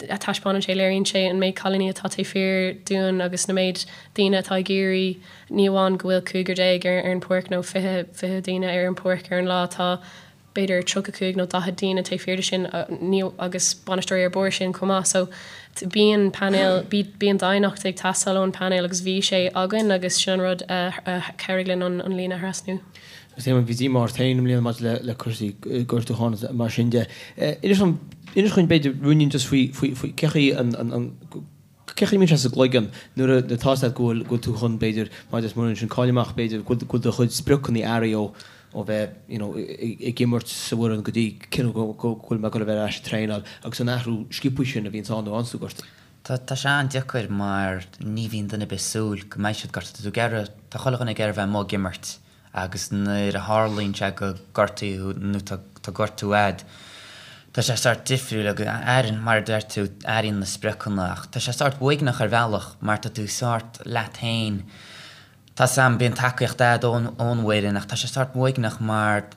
ach taispeánann sé, léiríonn sé an méid cailíní atá taobh thiar dúinn agus na méid daoine atá ag iarraidh, ní amháin go bhfuil cúigear ar ar an pháirc nó 20, 20 daoine ar an pháirc ar an lá, tá b'fhéidir 35 nó 40 daoine taobh thiar de sin ní, agus bainisteoirí ar bharr sin chomh maith. So bíonn painéal, bíonn daonnacht ag teastáil ón painéal agus bhí sé againn agus sin an rud a chabhraigh linn an an líne a thrasnú. Agus Éamonn, bhí díomá ort féin i mbliana maidir le le cúrsaí gortúcháin agus mar sin de. Inis dom, inis dhúinn b'fhéidir ruainnín just faoi faoi faoi cé chaoi an an an cé chaoi a mbíonn sé sa gcloigeann nuair a nuair atá a fhios agat go bhfuil go bhfuil tú chun b'fhéidir mar is muireann sin cáil amach b'fhéidir go bhfuil go bhfuil do chuid spriocanna athraithe ó ó bheith you know ag imirt sa bhfoireann go dtí cinneadh go go bhfuil mé ag dul a bheith ar ais ag traenáil agus an athrú sciobtha sin a bhíonns ann nó ann sa gortú. Tá tá sé an-deacair mar ní bhíonn duine ar bith ag súil go mbeidh siad gortaithe. Tá tú ag iarraidh, tá chuile dhuine ag iarraidh bheith amuigh ag imirt agus nuair a tharlaíonn sé go gortaíonn tú nó tá tá gortú a'd, tá sé sórt difriúil agus airíonn, mar a deir tú, airíonn na spriocanna ach tá sé sórt uaigneach ar bhealach mar tá tú sórt leat féin. Tá 's a'm, bíonn tacaíocht a'd ón ón bhfoireann ach tá sé sórt uaigneach mar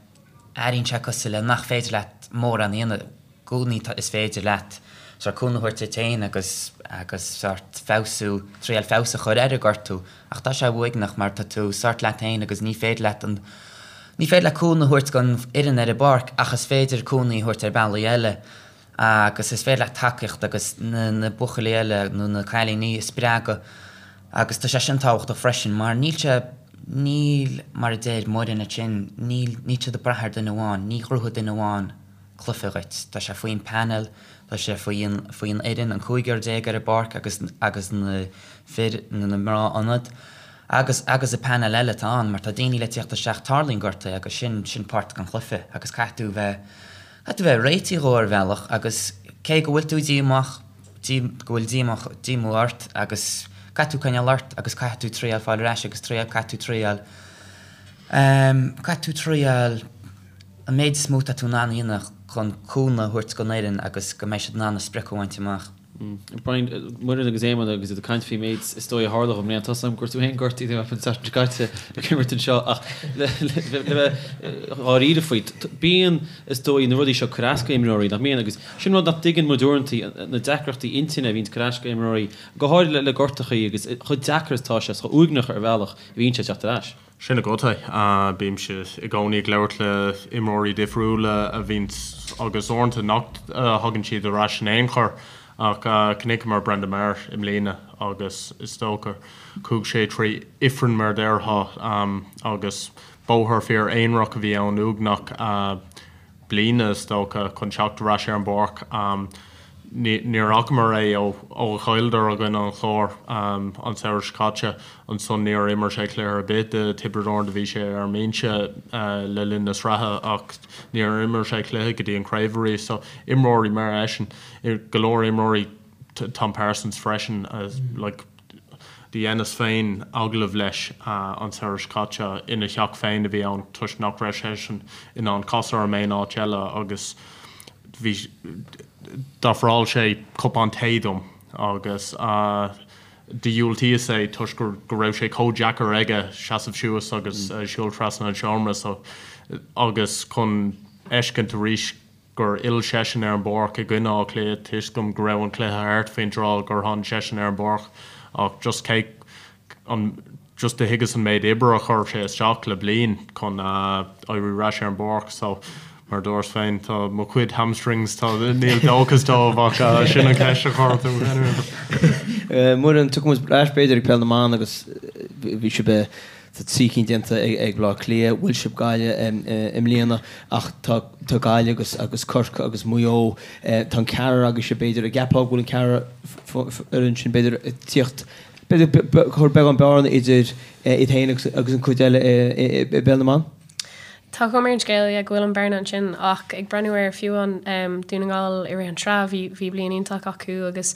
airíonn sé cosúil le nach féidir leat mórán a dhéanamh. gcónaí is féidir leat sórt cúnamh a thabhairt duit féin agus agus sórt feabhsú, triail feabhas a chur ar an gortú ach tá sé uaigneach mar tá tú sórt leat féin agus ní féidir leat an, ní féidir leat cúnamh a thabhairt don fhoireann ar an bpáirc ach is féidir cúnamh a thabhairt ar bealaí eile agus is féidir leat tacaíocht agus na na buachaillí eile nó na cailíní a spreagadh agus tá sé sin tábhachtach freisin mar níl sé, níl mar a deir Muireann ansin, níl, níl siad ag brath ar duine amháin, ní ghnóthóidh duine amháin cluiche dhuit. Tá sé faoin panel, tá sé faoi faoin fhoireann, an cúigear ar an bpáirc agus agus na fir nó na mná ionad agus agus an panel eile atá ann mar tá daoine le tíocht isteach, tarlaíonn gortuithe agus sin sin páirt den chluiche agus caithfidh tú bheith caithfidh tú bheith réitithe dhó ar bhealach agus cé go bhfuil tú díomách dí go bhfuil díomách díomá ort agus caithfidh tú coinneáil ort agus caithfidh tú triail fáil ar ais agus triail caithfidh tú triail ehm caithfidh tú triail an méid is mó atá tú in ann a dhéanamh chun cúnamh a thabhairt don fhoireann agus go mbeidh siad in ann a sprioc a bhaint amach. Brian, Muireann agus Éamonn agus iad ag caint faoin méid is dóigh a tharla i mbliana. Tá 's agam go raibh tú féin gortaithe an tseachtain seo caite ag imirt anseo ach le bheith dháiríre faoi, bíonn is dóigh na rudaí seo ag cur as go imreoirí, nach mbíonn? Agus sin rud nach dtuigeann muid uaireanta, na deacrachtaí intinne a bhíonns ag cur as go imreoirí, go háirithe le gortachaí agus chomh deacair is atá sé, is chomh uaigneach ar bhealach a bhíonn sé teacht ar ais. Sin agat é. Bímse i gcónaí ag labhairt le imreoirí difriúla a bhíonns agus uaireanta nach thagann siad ar ais in aon chor ach chonaiceamar Brendan Maher i mbliana agus is dócha chuaigh sé trí ifreann mar a déarfá agus bóthar fíor aonarach a bhí ann uaigneach. bliana, is dócha, chun teacht ar ais ar an bpáirc. Níor fhacamar é ó ó chailleadar i gcoinne an Chláir an samhradh seo caite. Ansan níor imir sé cluiche ar bith do Tiobraid Árann. Do bhí sé ar an mbinse le linn na sraithe ach níor imir sé cluiche go dtí an craobh arís. So imreoirí mar eisean, go leor imreoirí, Tom Parsons freisin, like, Do dheineas féin agallamh leis an samhradh seo caite, ina theach féin a bhí ann toisc nach raibh seisean in ann casadh orm aon áit eile agus bhí, d'ofráil sé cupán tae dom agus do dhiúltaíos é toisc go raibh sé chomh deacair aige seasamh suas agus siúl trasna an seomra so agus chun fheiscint arís. Gur fhill seisean ar an bpáirc i gcoinne Átha Cliath, tuigim go raibh an cluiche thart faoin tráth gur tháinig seisean ar an bpáirc ach just cé an just do thuigeas an méid oibre a chuir sé isteach le bliain chun éirí ar ais ar an bpáirc so mar a dúras féin tá mo chuid hamstrings tá níl dóchas dóibh ach sin an cheist a chuir tú anyway. Muireann, tiocfaidh muid ar ais b'fhéidir ag Peil na mBan agus bhí sibh Tá 3 cinn déanta ag Baile Átha Cliath, bhuail sibh Gaillimh i mbliana ach tá Gaillimh agus agus Corcaigh agus Maigh Eo, tá an ceathrar agaibhse b'fhéidir, an gceapfá go bhfuil an ceathrar fhoireann sin b'fhéidir ag tíocht, b'fhéidir ag cur beagán bearna idir iad féin agus agus an cuid eile i bPeil na mBan? Tá cuma ar an scéal, yeah, go bhfuil an bearna ansin ach ag breathnú ar fiú an Dún na nGall i rith an tsraith, bhí bhí bliain iontach acu agus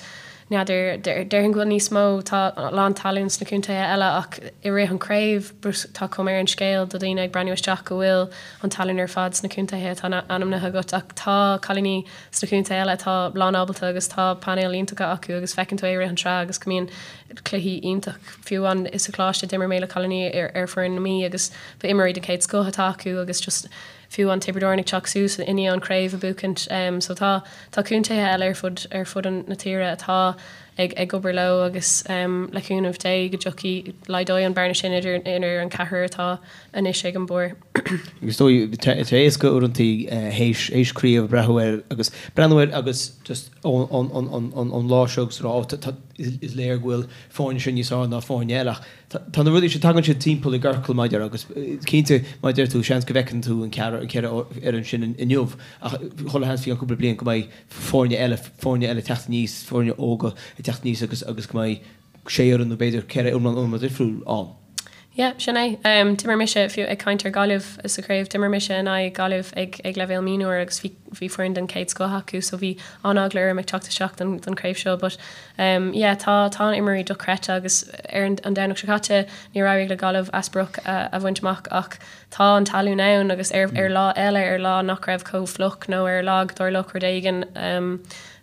n'fheadar, déarfainn go bhfuil níos mó, tá a lán talún sna contaetha eile ach i rith an craobh tá cuma ar an scéal do dhaoine ag breathnú isteach go bhfuil an talún ar fad sna contaetha atá ainmnithe agat ach tá cailíní sna contaetha eile atá lán ábalta agus tá painéil iontacha acu agus feiceann tú é i rith an tsraith agus go mbíonn cluichí iontach. Fiú amháin sa choláiste d'imir mé le cailíní ar foireann na Mí agus ba imreoirí den chéad scoth atá acu agus just fiú an Tiobraid Árann ag teacht suas i ndiaidh an craobh a buachaint so tá tá contaetha eile ar fud ar fud an na tíre atá ag ag obair leo agus le cúnamh Dé go dtiocfaidh laghdóidh an bearna sin idir idir an ceathrar atá anois ag an barr. Agus is dóigh tá sé éasca uaireanta théis théis craobh breathnú air agus breathnú air agus just ón ón ón ón lá seo agus rá ó tá is léir go bhfuil foirne seo níos fearr ná foirne eile ach Tá na rudaí seo, tagann siad timpeall i gciorcal mar a déarfá agus cinnte mar a deir tú, seans go bhfeiceann tú an ceathrar, an ceithre fhoireann sin inniu ach chuile sheans faoi cheann cúpla bliain go mbeidh foirne eile, foirne eile ag teacht aníos, foirne óga ag teacht aníos agus agus go mbeidh sé fhoireann nó b'fhéidir ceithre iomlán iomlán difriúil ann. Yeah, sin é. D'imir mise, fiú ag caint ar Gaillimh sa chraobh, d'imir mise in aghaidh Gaillimh ag ag leibhéal mionúir agus bhí bhí foireann den chéad scoth acu so bhí an-eagla orm ag teacht isteach don don chraobh seo but Yeah, tá, tá na imreoirí dochreidte agus ar an Domhnach seo caite níor éirigh le Gaillimh a sprioc a bhaint amach ach tá an talún ann agus ar ar lá eile, ar lá nach raibh chomh fliuch nó ar lá go dtarlódh rud éigin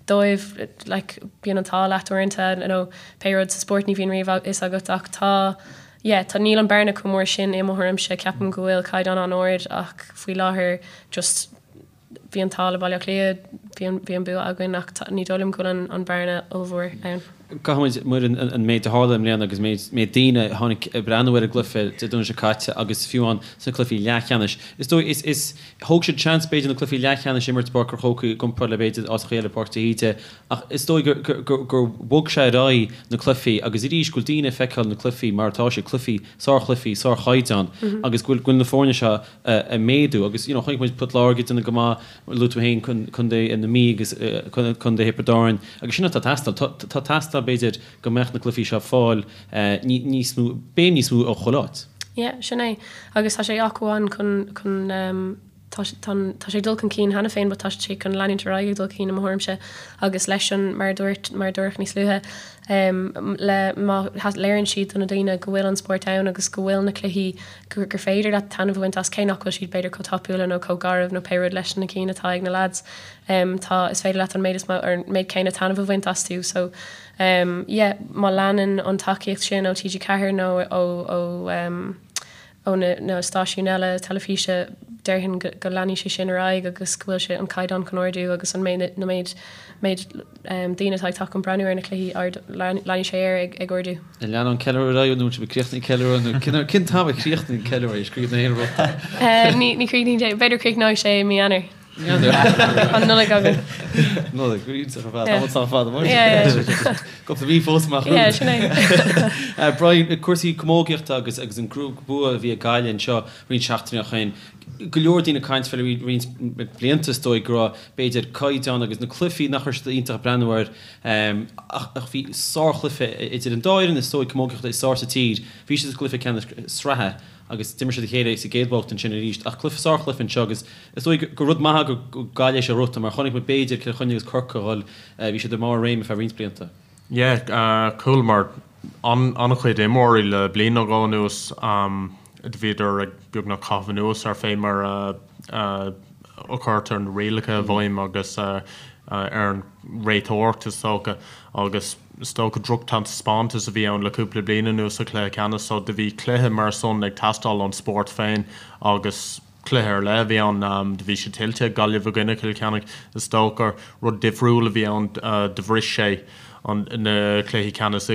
dóibh, like, bíonn an t-ádh leat uaireanta nó pé rud sa spórt ní bhíonn riamh a fhios agat ach tá, yeah, tá, níl an bearna chomh mór sin i mo thuairimse, ceapaim go bhfuil caighdeán an-ard ach faoi láthair just, Bhí an t-ádh le Baile Átha Cliath, bhí an, bhí an bua againn ach tá, ní dóigh liom go bhfuil an, an bearna ollmhór ann. Caithfidh muid, Muireann, an méid a tharla i mbliana agus méid, méid daoine a tháinig ag breathnú ar an gcluiche Dé Domhnaigh seo caite agus fiú amháin sna cluichí leathcheannais. Is dóigh, is, is, thóg siad seans b'fhéidir na cluichí leathcheannais a imirt i bPáirc an Chrócaigh i gcomparáid le b'fhéidir áiteacha eile Páirc de hÍde ach is dóigh gur, gur, gur, gur bhog sé ar aghaidh na cluichí agus arís go bhfuil daoine ag feiceáil na cluichí mar atá siad, cluichí, sárchluichí, sárchaighdeán agus go bhfuil, go bhfuil na foirne seo ag méadú agus you know chonaic muid Port Láirge ag déanamh go maith, luaigh tú féin Contae na Mí agus Contae Thiobraid Árann agus sin atá ag teastáil. Tá ag teastáil b'fhéidir go mbeadh na cluichí seo ag fáil níos mó, béim níos mó ó chuile áit. Yeah, sin é. Agus tá sé acmhainn chun, chun, tá, tá, tá sé ag dul chun cinn cheana féin but tá sé chun leanúint ar aghaidh ag dul chun cinn i mo thuairimse agus leis an, mar a dúirt, mar a dúradh níos luaithe, le, má léiríonn siad do na daoine go bhfuil an spórt ann agus go bhfuil na cluichí gur féidir leat taitneamh a bhaint as, cé nach bhfuil siad b'fhéidir chomh tapúla nó chomh garbh nó pé rud leis na cinn atá ag na lads. Tá, is féidir leat an méid is mó, or an méid céanna taitneamh a bhaint astu. So, yeah, má leanann an tacaíocht sin ó TG4 nó ó, ó, ó na, na stáisiúin eile teilifíse, déarfainn go, go leanfaidh sé sin ar aghaidh agus go bhfuil sé, an caighdeán chun ardú agus an méid, na méid, méid daoine atá ag teacht chun breathnú ar na cluichí, ard, leanfaidh sé air ag, ag ardú. An leanann an ceiliúradh ar aghaidh nó bhfuil sibh ag críochnú an ceiliúradh nó cén t-am a chríochnaíonn an ceiliúradh? Is críochnaíonn aon rud. Ní ní chríochnaíonn sé, b'fhéidir críochnóidh sé i mí Eanáir. Mí Eanáir. An Nollaig againn. Nollaig, go iontach ar fad. Tá muid sách fada mar sin. Cúpla mí fós amach romhainn. Yeah, sin é. Brian, cúrsaí camógaíochta agus agus an bua a bhí ag Gaillimh anseo roinnt seachtainí ó shin. Go leor daoine ag caint fé le roinnt blianta is dóigh go raibh b'fhéidir caighdeán agus na cluichí nach raibh siad iontach ag breathnú air Ach bhí sárchluiche idir an dá fhoireann is dóigh camógaíochta is fearr sa tír. Bhí siad sa gcluiche ceannais sraithe agus d'imir siad a chéile sa gcéad bhabhta ansin arís. Ach cluiche, sárchluiche anseo agus is dóigh gur rud maith go Gaillimh sé rota mar chonaic muid b'fhéidir Cill Chainnigh agus Corcaigh a dhul, bhí siad i mbarr a réime feadh roinnt blianta. Yeah, chualamar an-chuid imreoirí le bliain nó dhó anuas, do bhíodar ag beagnach caitheamh anuas ar fé mar a chuirtear na rialacha i bhfeidhm agus ar an réiteoireacht is dócha agus is dócha drochtaispeántas a bhí ann le cúpla bliain anuas sa chluiche ceannais so do bhí cluiche mar san ag teastáil ón spórt féin agus. Cluiche ar leith a bhí ann. Do bhí sé tuillte ag Gaillimh i gcoinne Chill Chainnigh. Is dócha gur rud difriúil a bhí ann. Do bhris sé na cluichí ceannais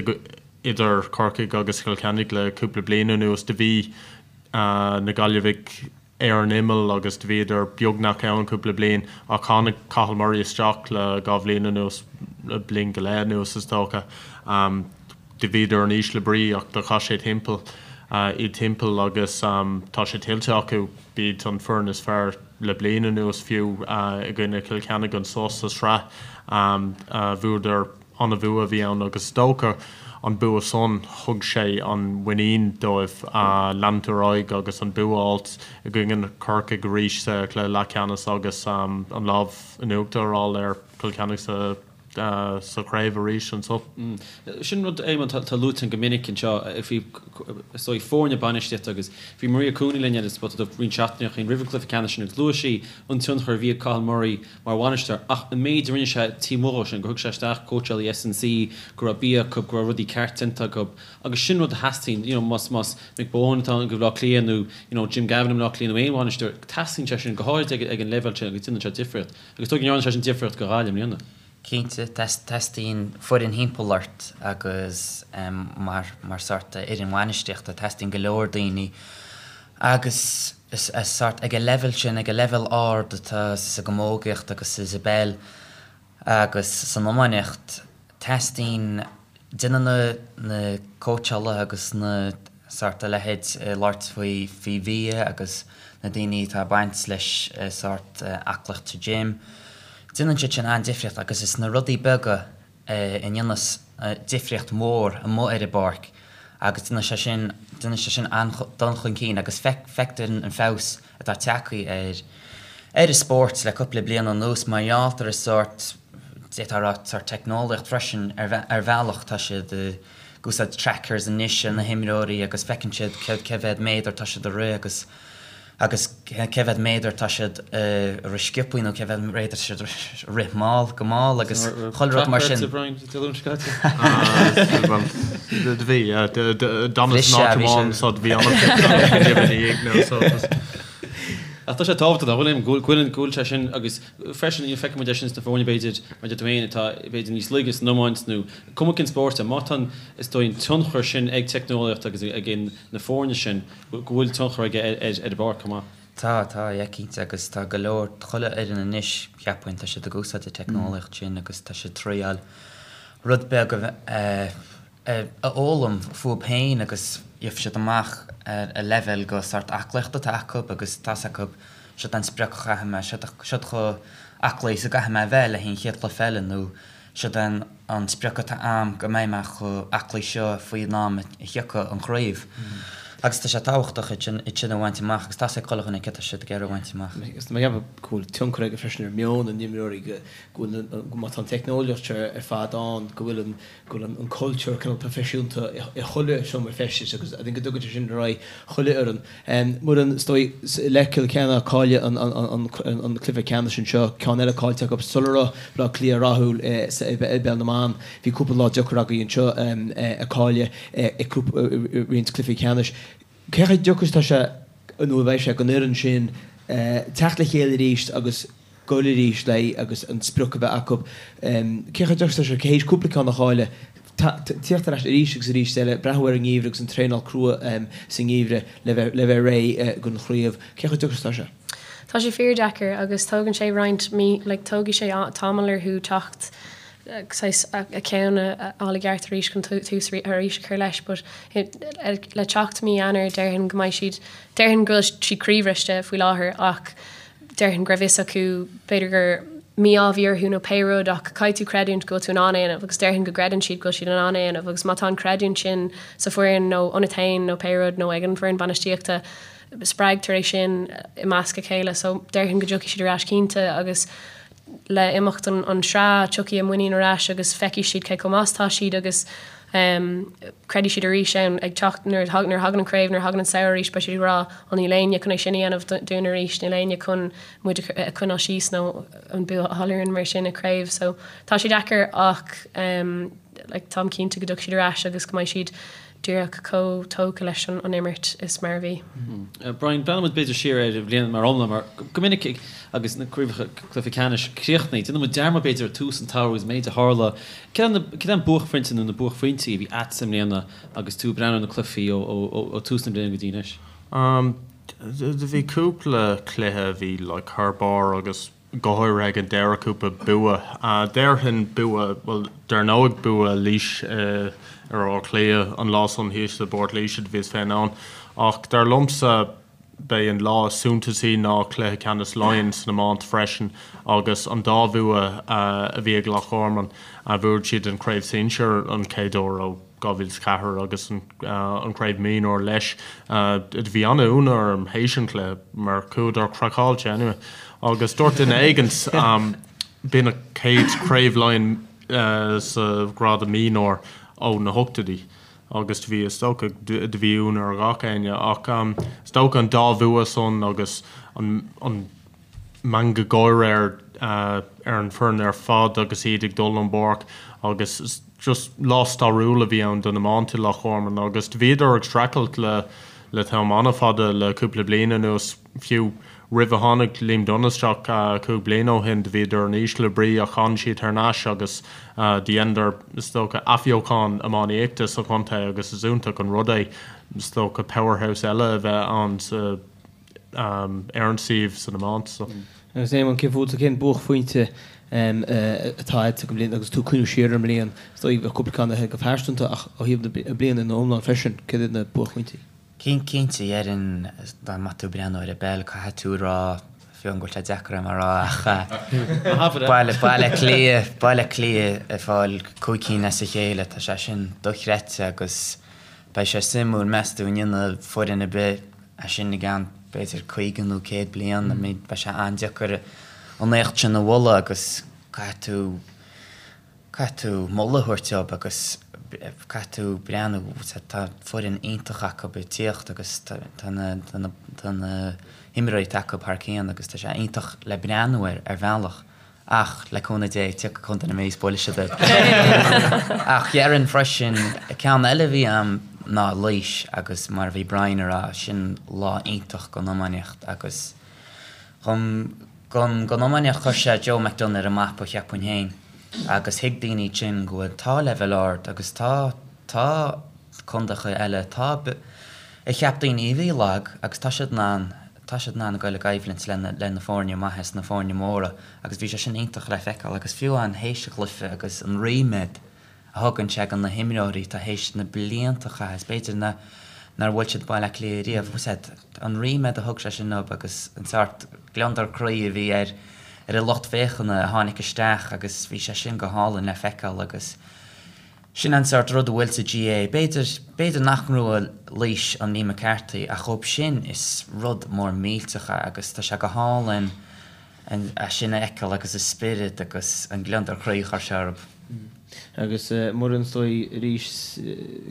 idir Corcaigh agus Cill Chainnigh le cúpla bliain anuas. Do bhí na Gaillimhigh ar an imeall agus do bhíodar beagnach ann cúpla bliain ach tháinig Cathal Murray isteach le dhá bhliain anuas, le bliain go leith anuas is dócha. Do bhíodar in ísle brí ach do chaith sé timpeall iad timpeall agus tá sé tuillte acu. B'iad an foireann is fearr le bliain anuas fiú i gcoinne Chill Chainnigh anso sa sraith. Bhuadar an-bhua a bhí ann agus is dócha an bua san thug sé an mhuinín dóibh leanúint ar aghaidh agus an bua a fháilt i gcoinne Corcaigh arís sa chluiche leathcheannais agus an lámh in uachtar a fháil ar Chill Chainnigh sa sa chraobh arís anso. Sin rud, Éamonn, atá luaite go minic anseo faoi, is dóigh, foirne bainistíochta agus bhí Maria Cooney linn ar an Spota Dubh roinnt seachtainí ó shin roimh an gcluiche ceannais sin agus luaigh sí an tionchar a bhí ag Cathal Murray mar bhainisteoir ach an méid a rinne sé taobh amuigh dhó sin, gur thug sé isteach cóitseálaí S&C, go raibh bia acu, go raibh rudaí ceart déanta acu agus sin rud a theastaíonn, you know, más, más Mick Bohan atá i mBleá Cliath nó, you know, Jim Gavin i mBleá Cliath nó aon bhainisteoir, teastaíonn sé sin go háirid ag, ag an leibhéal sin agus déanann sé difríocht. Agus is dóigh go ndearna sé sin difríocht do Ghaillimh i mbliana. Cinnte, teastaíonn foireann thimpeall ort agus mar, mar sórt fhoireann bhainistíochta, teastaíonn go leor daoine agus is sórt ag an leibhéal sin, ag an leibhéal ard atá sa gcamógaíocht agus sa bpeil agus san iománaíocht, teastaíonn, déanann na, na cóitseálaithe agus na sórt a leithéid ag labhairt faoi, faoi bhia agus na daoine atá ag baint leis sórt aclaíocht sa gym, déanann siad sin an-difríocht agus is na rudaí beaga a ndéanas difríocht mhór amuigh ar an bpáirc agus déanann sé sin, déanann sé sin an-dul chun cinn agus feictear an feabhas atá tagtha ar ar an spórt le cúpla bliain anuas mar gheall ar an sórt, d'fhéadfá a rá, sórt teicneolaíocht freisin ar ar bhealach. Tá siad ag úsáid trackers anois ar na himreoirí agus feiceann siad cé mhéad méadar tá siad ag rith agus agus cé mhéad méadar tá siad ag rith sciobthaí nó cé mhéad méadar tá siad ag rith mall, go mall agus chuile rud mar sin. Bhí, d'fhanas in áit amháin so bhí Ach tá sé tábhachtach nach bhfuil, go bhfuil, go bhfuil sé sin agus freisin feicfidh muid é sin sna foirne b'fhéidir, mar a deir tú féin, atá b'fhéidir níos laige san iomáint nó cuma cén spórt é, má tá an, is dóigh, an tionchar sin ag teicneolaíocht agus ag na foirne sin, go bhfuil tionchar aige ar an bpáirc chomh maith. Tá, tá, yeah, cinnte, agus tá go leor, chuile fhoireann anois, cheapfainn, tá siad ag úsáid an teicneolaíocht sin agus tá siad triáil rud beag a a fhoghlaim fúthu féin agus gheobhaidh siad amach a leibhéal go sórt aclaíochta atá acu agus tá's acu siod an sprioc a chaithfidh mé, siod chomh aclaí is a gcaithfidh mé a bheith le haghaidh an chéad chluiche eile nó Siod é an sprioc atá a'm go mbeidh mé chomh aclaí seo faoin am a thiocfaidh an chraobh. Agus tá sé tábhachtach iad sin, iad sin a bhaint amach agus tá's ag chuile dhuine céard tá siad ag iarraidh a bhaint amach. Agus tá mé ag ceapadh go bhfuil tionchar aige freisin ar mheon na n-imreoirí, go bhfuil, má tá an teicneolaíocht seo ar fad ann, go bhfuil an, go bhfuil an cultúr cineál proifisiúnta i chuile seomra feistis agus I think go dtugann sé sin ar aghaidh chuile fhoireann. Muireann, is dóigh, le Cill Chainnigh cailleadh an cluiche ceannais anseo, ceann eile caillte acu sula raibh Bleá Cliath rathúil i bPeil na mBan. Bhí cúpla lá deacair agaibh anseo a cailleadh i roinnt cluichí ceannais. Cé chomh deacair is atá sé nó a bheidh sé don fhoireann sin teacht le chéile arís agus goil arís léi agus an sprioc a bheith acu. Cé chomh deacair is atá sé théis cúpla ceann a chailleadh, tíocht ar ais arís agus arís eile, breathnú ar an ngeimhreadh agus an traenáil crua sa ngeimhreadh le bheith le bheith réidh don chraobh. Cé chomh deacair is atá sé? Tá sé fíordheacair agus tógann sé roinnt mí, like tógfaidh sé tamall orthu teacht saghas a ceann a fháil i gceart arís chun tús arís a chur leis but le teacht mí Eanáir déarfainn go mbeidh siad, déarfainn go bhfuil siad croíbhriste faoi láthair ach déarfainn go raibh fhios acu b'fhéidir gur mí-ádh a bhí orthu nó pé rud ach caithfidh tú creidiúint go bhfuil tú in ann é a dhéanamh agus déarfainn go gcreideann siad go bhfuil siad in ann é a dhéanamh agus má tá an creidiúint sin sa foireann nó ionat féin nó pé rud nó ag an bhfoireann bainistíochta spreagtar é sin i measc a chéile so déarfainn go dtiocfaidh siad ar ais cinnte agus le imeacht an sraith tiocfaidh a muinín ar ais agus feicfidh siad cé chomh maith is atá siad agus creidfidh siad arís ann ag teacht nuair a thagann an craobh, nuair a thagann an samhradh arís beidh siad ag rá ó níl éinne chun é sin a dhéanamh dúinn arís, níl éinne chun muid a choinneáil síos nó an bua a fháil orainn mar sin i craobh. So tá sé deacair ach like táim cinnte go dtiocfaidh siad ar ais agus go mbeidh siad. Díreach chomh tógtha leis an imirt is mar a bhí. Brian, breathnaíonn muid b'fhéidir siar ar an bhliain mar iomlán mar go minic agus na craobhacha cluiche ceannais críochnaithe, déanann muid dearmad b'fhéidir ar tús an tsamhraidh agus an méid a tharla. Céard é an buaicphointe nó na buaicphointí a bhí a'dsa i mbliana agus tú ag breathnú ar na cluichí ó tús na bliana go dtí anois? Do bhí cúpla cluiche a bhí like thar barr agus go háirithe ag an deireadh cúpla bua. Déarfainn bua, bhuel dar ndóigh bua Laois ar Áth Cliath an lá san thíos i bPort Laoise do bhíos féin ann. Ach dar liomsa b'é an lá is suntasaí ná cluiche ceannais Laighean san iomáint freisin agus an dá bhua a bhí ag Loch Garman. Bhuaigh siad an Craobh Sinsear an chéad uair ó 2004 agus an Craobh Mionúr leis. Do bhí an-ionadh orm théis an chluiche mar chuadar craiceáilte anyway. Agus dúirt duine éigint b'in an chéad Chraobh Laighean sa ghrád mionúr ó na hochtóidí agus do bhí is dócha do bhí ionadh ar gach éinne ach is dócha an dá bhua san agus an an meangadh gáire ar ar an bhfoireann ar fad agus iad ag dul ón bpáirc agus just lá stairiúil a bhí ann don iomáint i Loch Garman agus do bhíodar ag streachailt le le t-am an-fhada le cúpla bliain anuas, fiú roimh a tháinig Liam Dunne isteach 5 bliana ó shin do bhíodar in ísle brí ach tháinig siad thar n-ais agus do dheineadar is dócha athbheochan iománaíochta sa chontae agus is iontach an rud é is dócha powerhouse eile a bheith ann sa ar an suíomh san iomáint so. Agus Éamonn, cé fútsa, cén buaicphointe atá agat don bhliain agus tú ag cuimhniú siar ar an mbliain? Is dóigh bheadh cúpla ceann agat go pearsanta ach ó thaobh na bliana ina iomlán freisin, céard iad na buaicphointí? Cinnte, déarfainn dá mbeadh tú ag breathnú ar an bpeil, caithfidh tú a rá, fiú amháin go bhfuil sé deacair dom a rá ach Baile Átha Cliath, Baile Átha Cliath ag fáil 5 cinn as a chéile, tá sé sin dochreidte agus beidh sé suimiúil, meas tú an ndéanfaidh foireann ar bith é sin i gceann b'fhéidir 50 nó 100 bliain, I mean beidh sé an-deacair an éacht sin a bhualadh agus caithfidh tú, caithfidh tú moladh a thabhairt dóibh agus caithfidh tú breathnú, tá foireann iontach acu ag tíocht agus tá na, tá na, tá na himreoirí atá acu thar cionn agus tá sé iontach le breathnú air ar bhealach. Ach, le cúnamh Dé, tiocfaidh Contae na Mí is buailfidh siad iad. Ach déarfainn freisin, ceann eile a bhí a'm ná Laois agus mar a bhí Brian a rá, sin lá iontach don iománaíocht agus don, don, don iománaíocht chuir sé Joe McDonagh ar an mapa cheapfainn féin agus thuig daoine ansin go bhfuil, tá leibhéal ard agus tá, tá contaetha eile, tá, a cheap daoine a bhí lag agus tá siad in ann tá siad in ann a goil i gcoimhlint le le na foirne maithe is na foirne móra agus bhí sé sin iontach le feiceáil agus fiú amháin théis an chluiche agus an ríméad a thugann sé do na himreoirí atá théis na blianta a chaitheamh is b'fhéidir na nár bhuail siad Baile Átha Cliath riamh bhfuil a fhios agat an ríméad a thug sé sin dóibh agus an sórt gliondar croí a bhí ar ar an lucht féachana a tháinig isteach agus bhí sé sin go hálainn le feiceáil agus Sin an sórt rud a bhfuil sa GAA. B'fhéidir, b'fhéidir nach ngnóthóidh Laois an Liam McCarthy ach dhóibh sin is rud mór millteach é agus tá sé go hálainn é sin a fheiceáil agus a spiorad agus an gliondar croí a chuir sé orthu. Agus Muireann, is dóigh arís,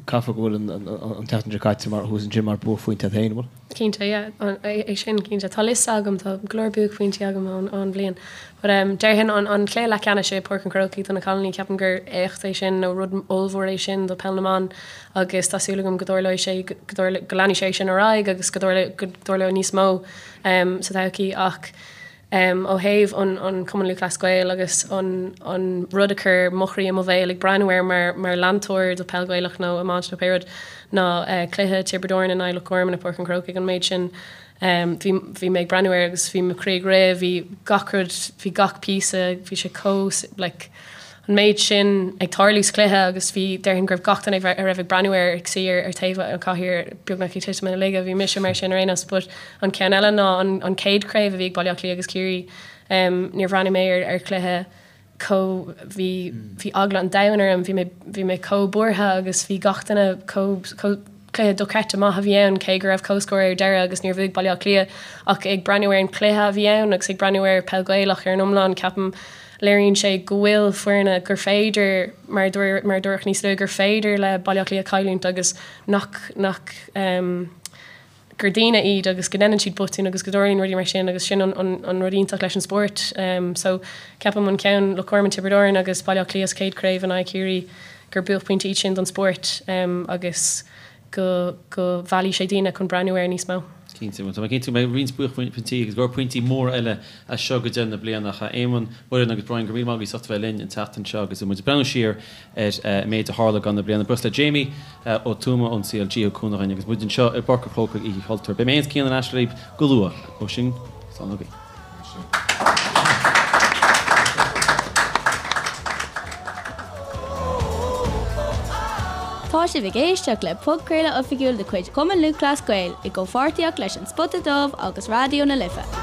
caithfidh go bhfuil an tseachtain seo caite mar thuas ansin mar buaicphointe agat féin, an bhfuil? Cinnte, yeah. É sin, cinnte. Tá liosta agam, tá go leor buaicphointí agam ón bhliain. But um déarfainn an an cluiche leathcheannais i Páirc an Chrócaigh do na cailíní, ceapaim gur éacht é sin nó rud ollmhór é sin do peil na mban agus tá súil agam go dtarlóidh sé go go leanfaidh sé sin ar aghaidh agus go dtarlóidh go dtarlóidh níos mó um sa todhchaí ach um ó thaobh an an Cumann Lúthchleas Gael agus an an rud a chuir mo chroí i mo bhéal ag breathnú air mar mar leantóir do peil Ghaelach nó iomáint nó pé rud ná uh cluiche Tiobraid Árann in aghaidh Loch Garman i Páirc an Chrócaigh an méid sin Bhí, bhí mé ag breathnú air agus bhí mo chroí ag rith, bhí gach rud, bhí gach píosa, bhí sé chomh, like, an méid sin ag tarlú sa chluiche agus bhí, déarfainn go raibh gach duine a raibh ag breathnú air ag suí ar, ar taobh an chathaoir beagnach ag titim ina laige, bhí mise mar sin ar aon nós. But an ceann eile ná an, an chéad chraobh a bhí ag Baile Átha Cliath agus Ciarraí, níor bhreathnaigh mé ar, ar chluiche chomh, bhí, bhí eagla an domhain orm, bhí mé, bhí mé chomh buartha agus bhí gach duine chomh, chomh, cluiche dochreidte maith a bhí ann cé go raibh comhscór ar deireadh agus níor bhuaigh Baile Átha Cliath ach ag breathnú ar an chluiche a bhí ann agus ag breathnú ar peil Ghaelach ar an iomlán ceapaim léiríonn sé go bhfuil foirne gur féidir mar a mar a dúradh níos luaithe gur féidir le Baile Átha Cliath cailliúint agus nach nach um, gur daoine iad agus go ndéanann siad botúin agus go dtarlaíonn rudaí mar sin agus sin an rud iontach leis an spórt. So ceapaim an ceann Loch Garman, Tiobraid Árann agus Baile Átha Cliath sa chéad chraobh in aghaidh Chiarraí. gur buaicphointí iad sin don spórt agus go go mheallfaidh sé daoine chun breathnú air níos mó. Cinnte, bhuel tá mé cinnte go mbeidh roinnt buaicphointí agus go leor pointí móra eile as seo go deireadh na bliana. Ach a Éamoinn, Muireann agus Brian, go raibh míle maith agaibh as ucht a bheith linn an tseachtain seo agus muid ag breathnú siar ar an méid a tharla i gcaitheamh na bliana. Buíochas le Jamie Ó Tuama ón CLG a thug cúnamh dhúinn agus muid anseo i bPáirc an Chrócaigh Oíche Chultúir. Beidh mé féin is Cian ar ais libh go luath. Ó sin, slán agaibh. Tá sibh ag éisteacht le podchraoladh oifigiúil de chuid Chumann Lúthchleas Gael i gcomhpháirtíocht leis An Spota Dubh agus Raidió na Life.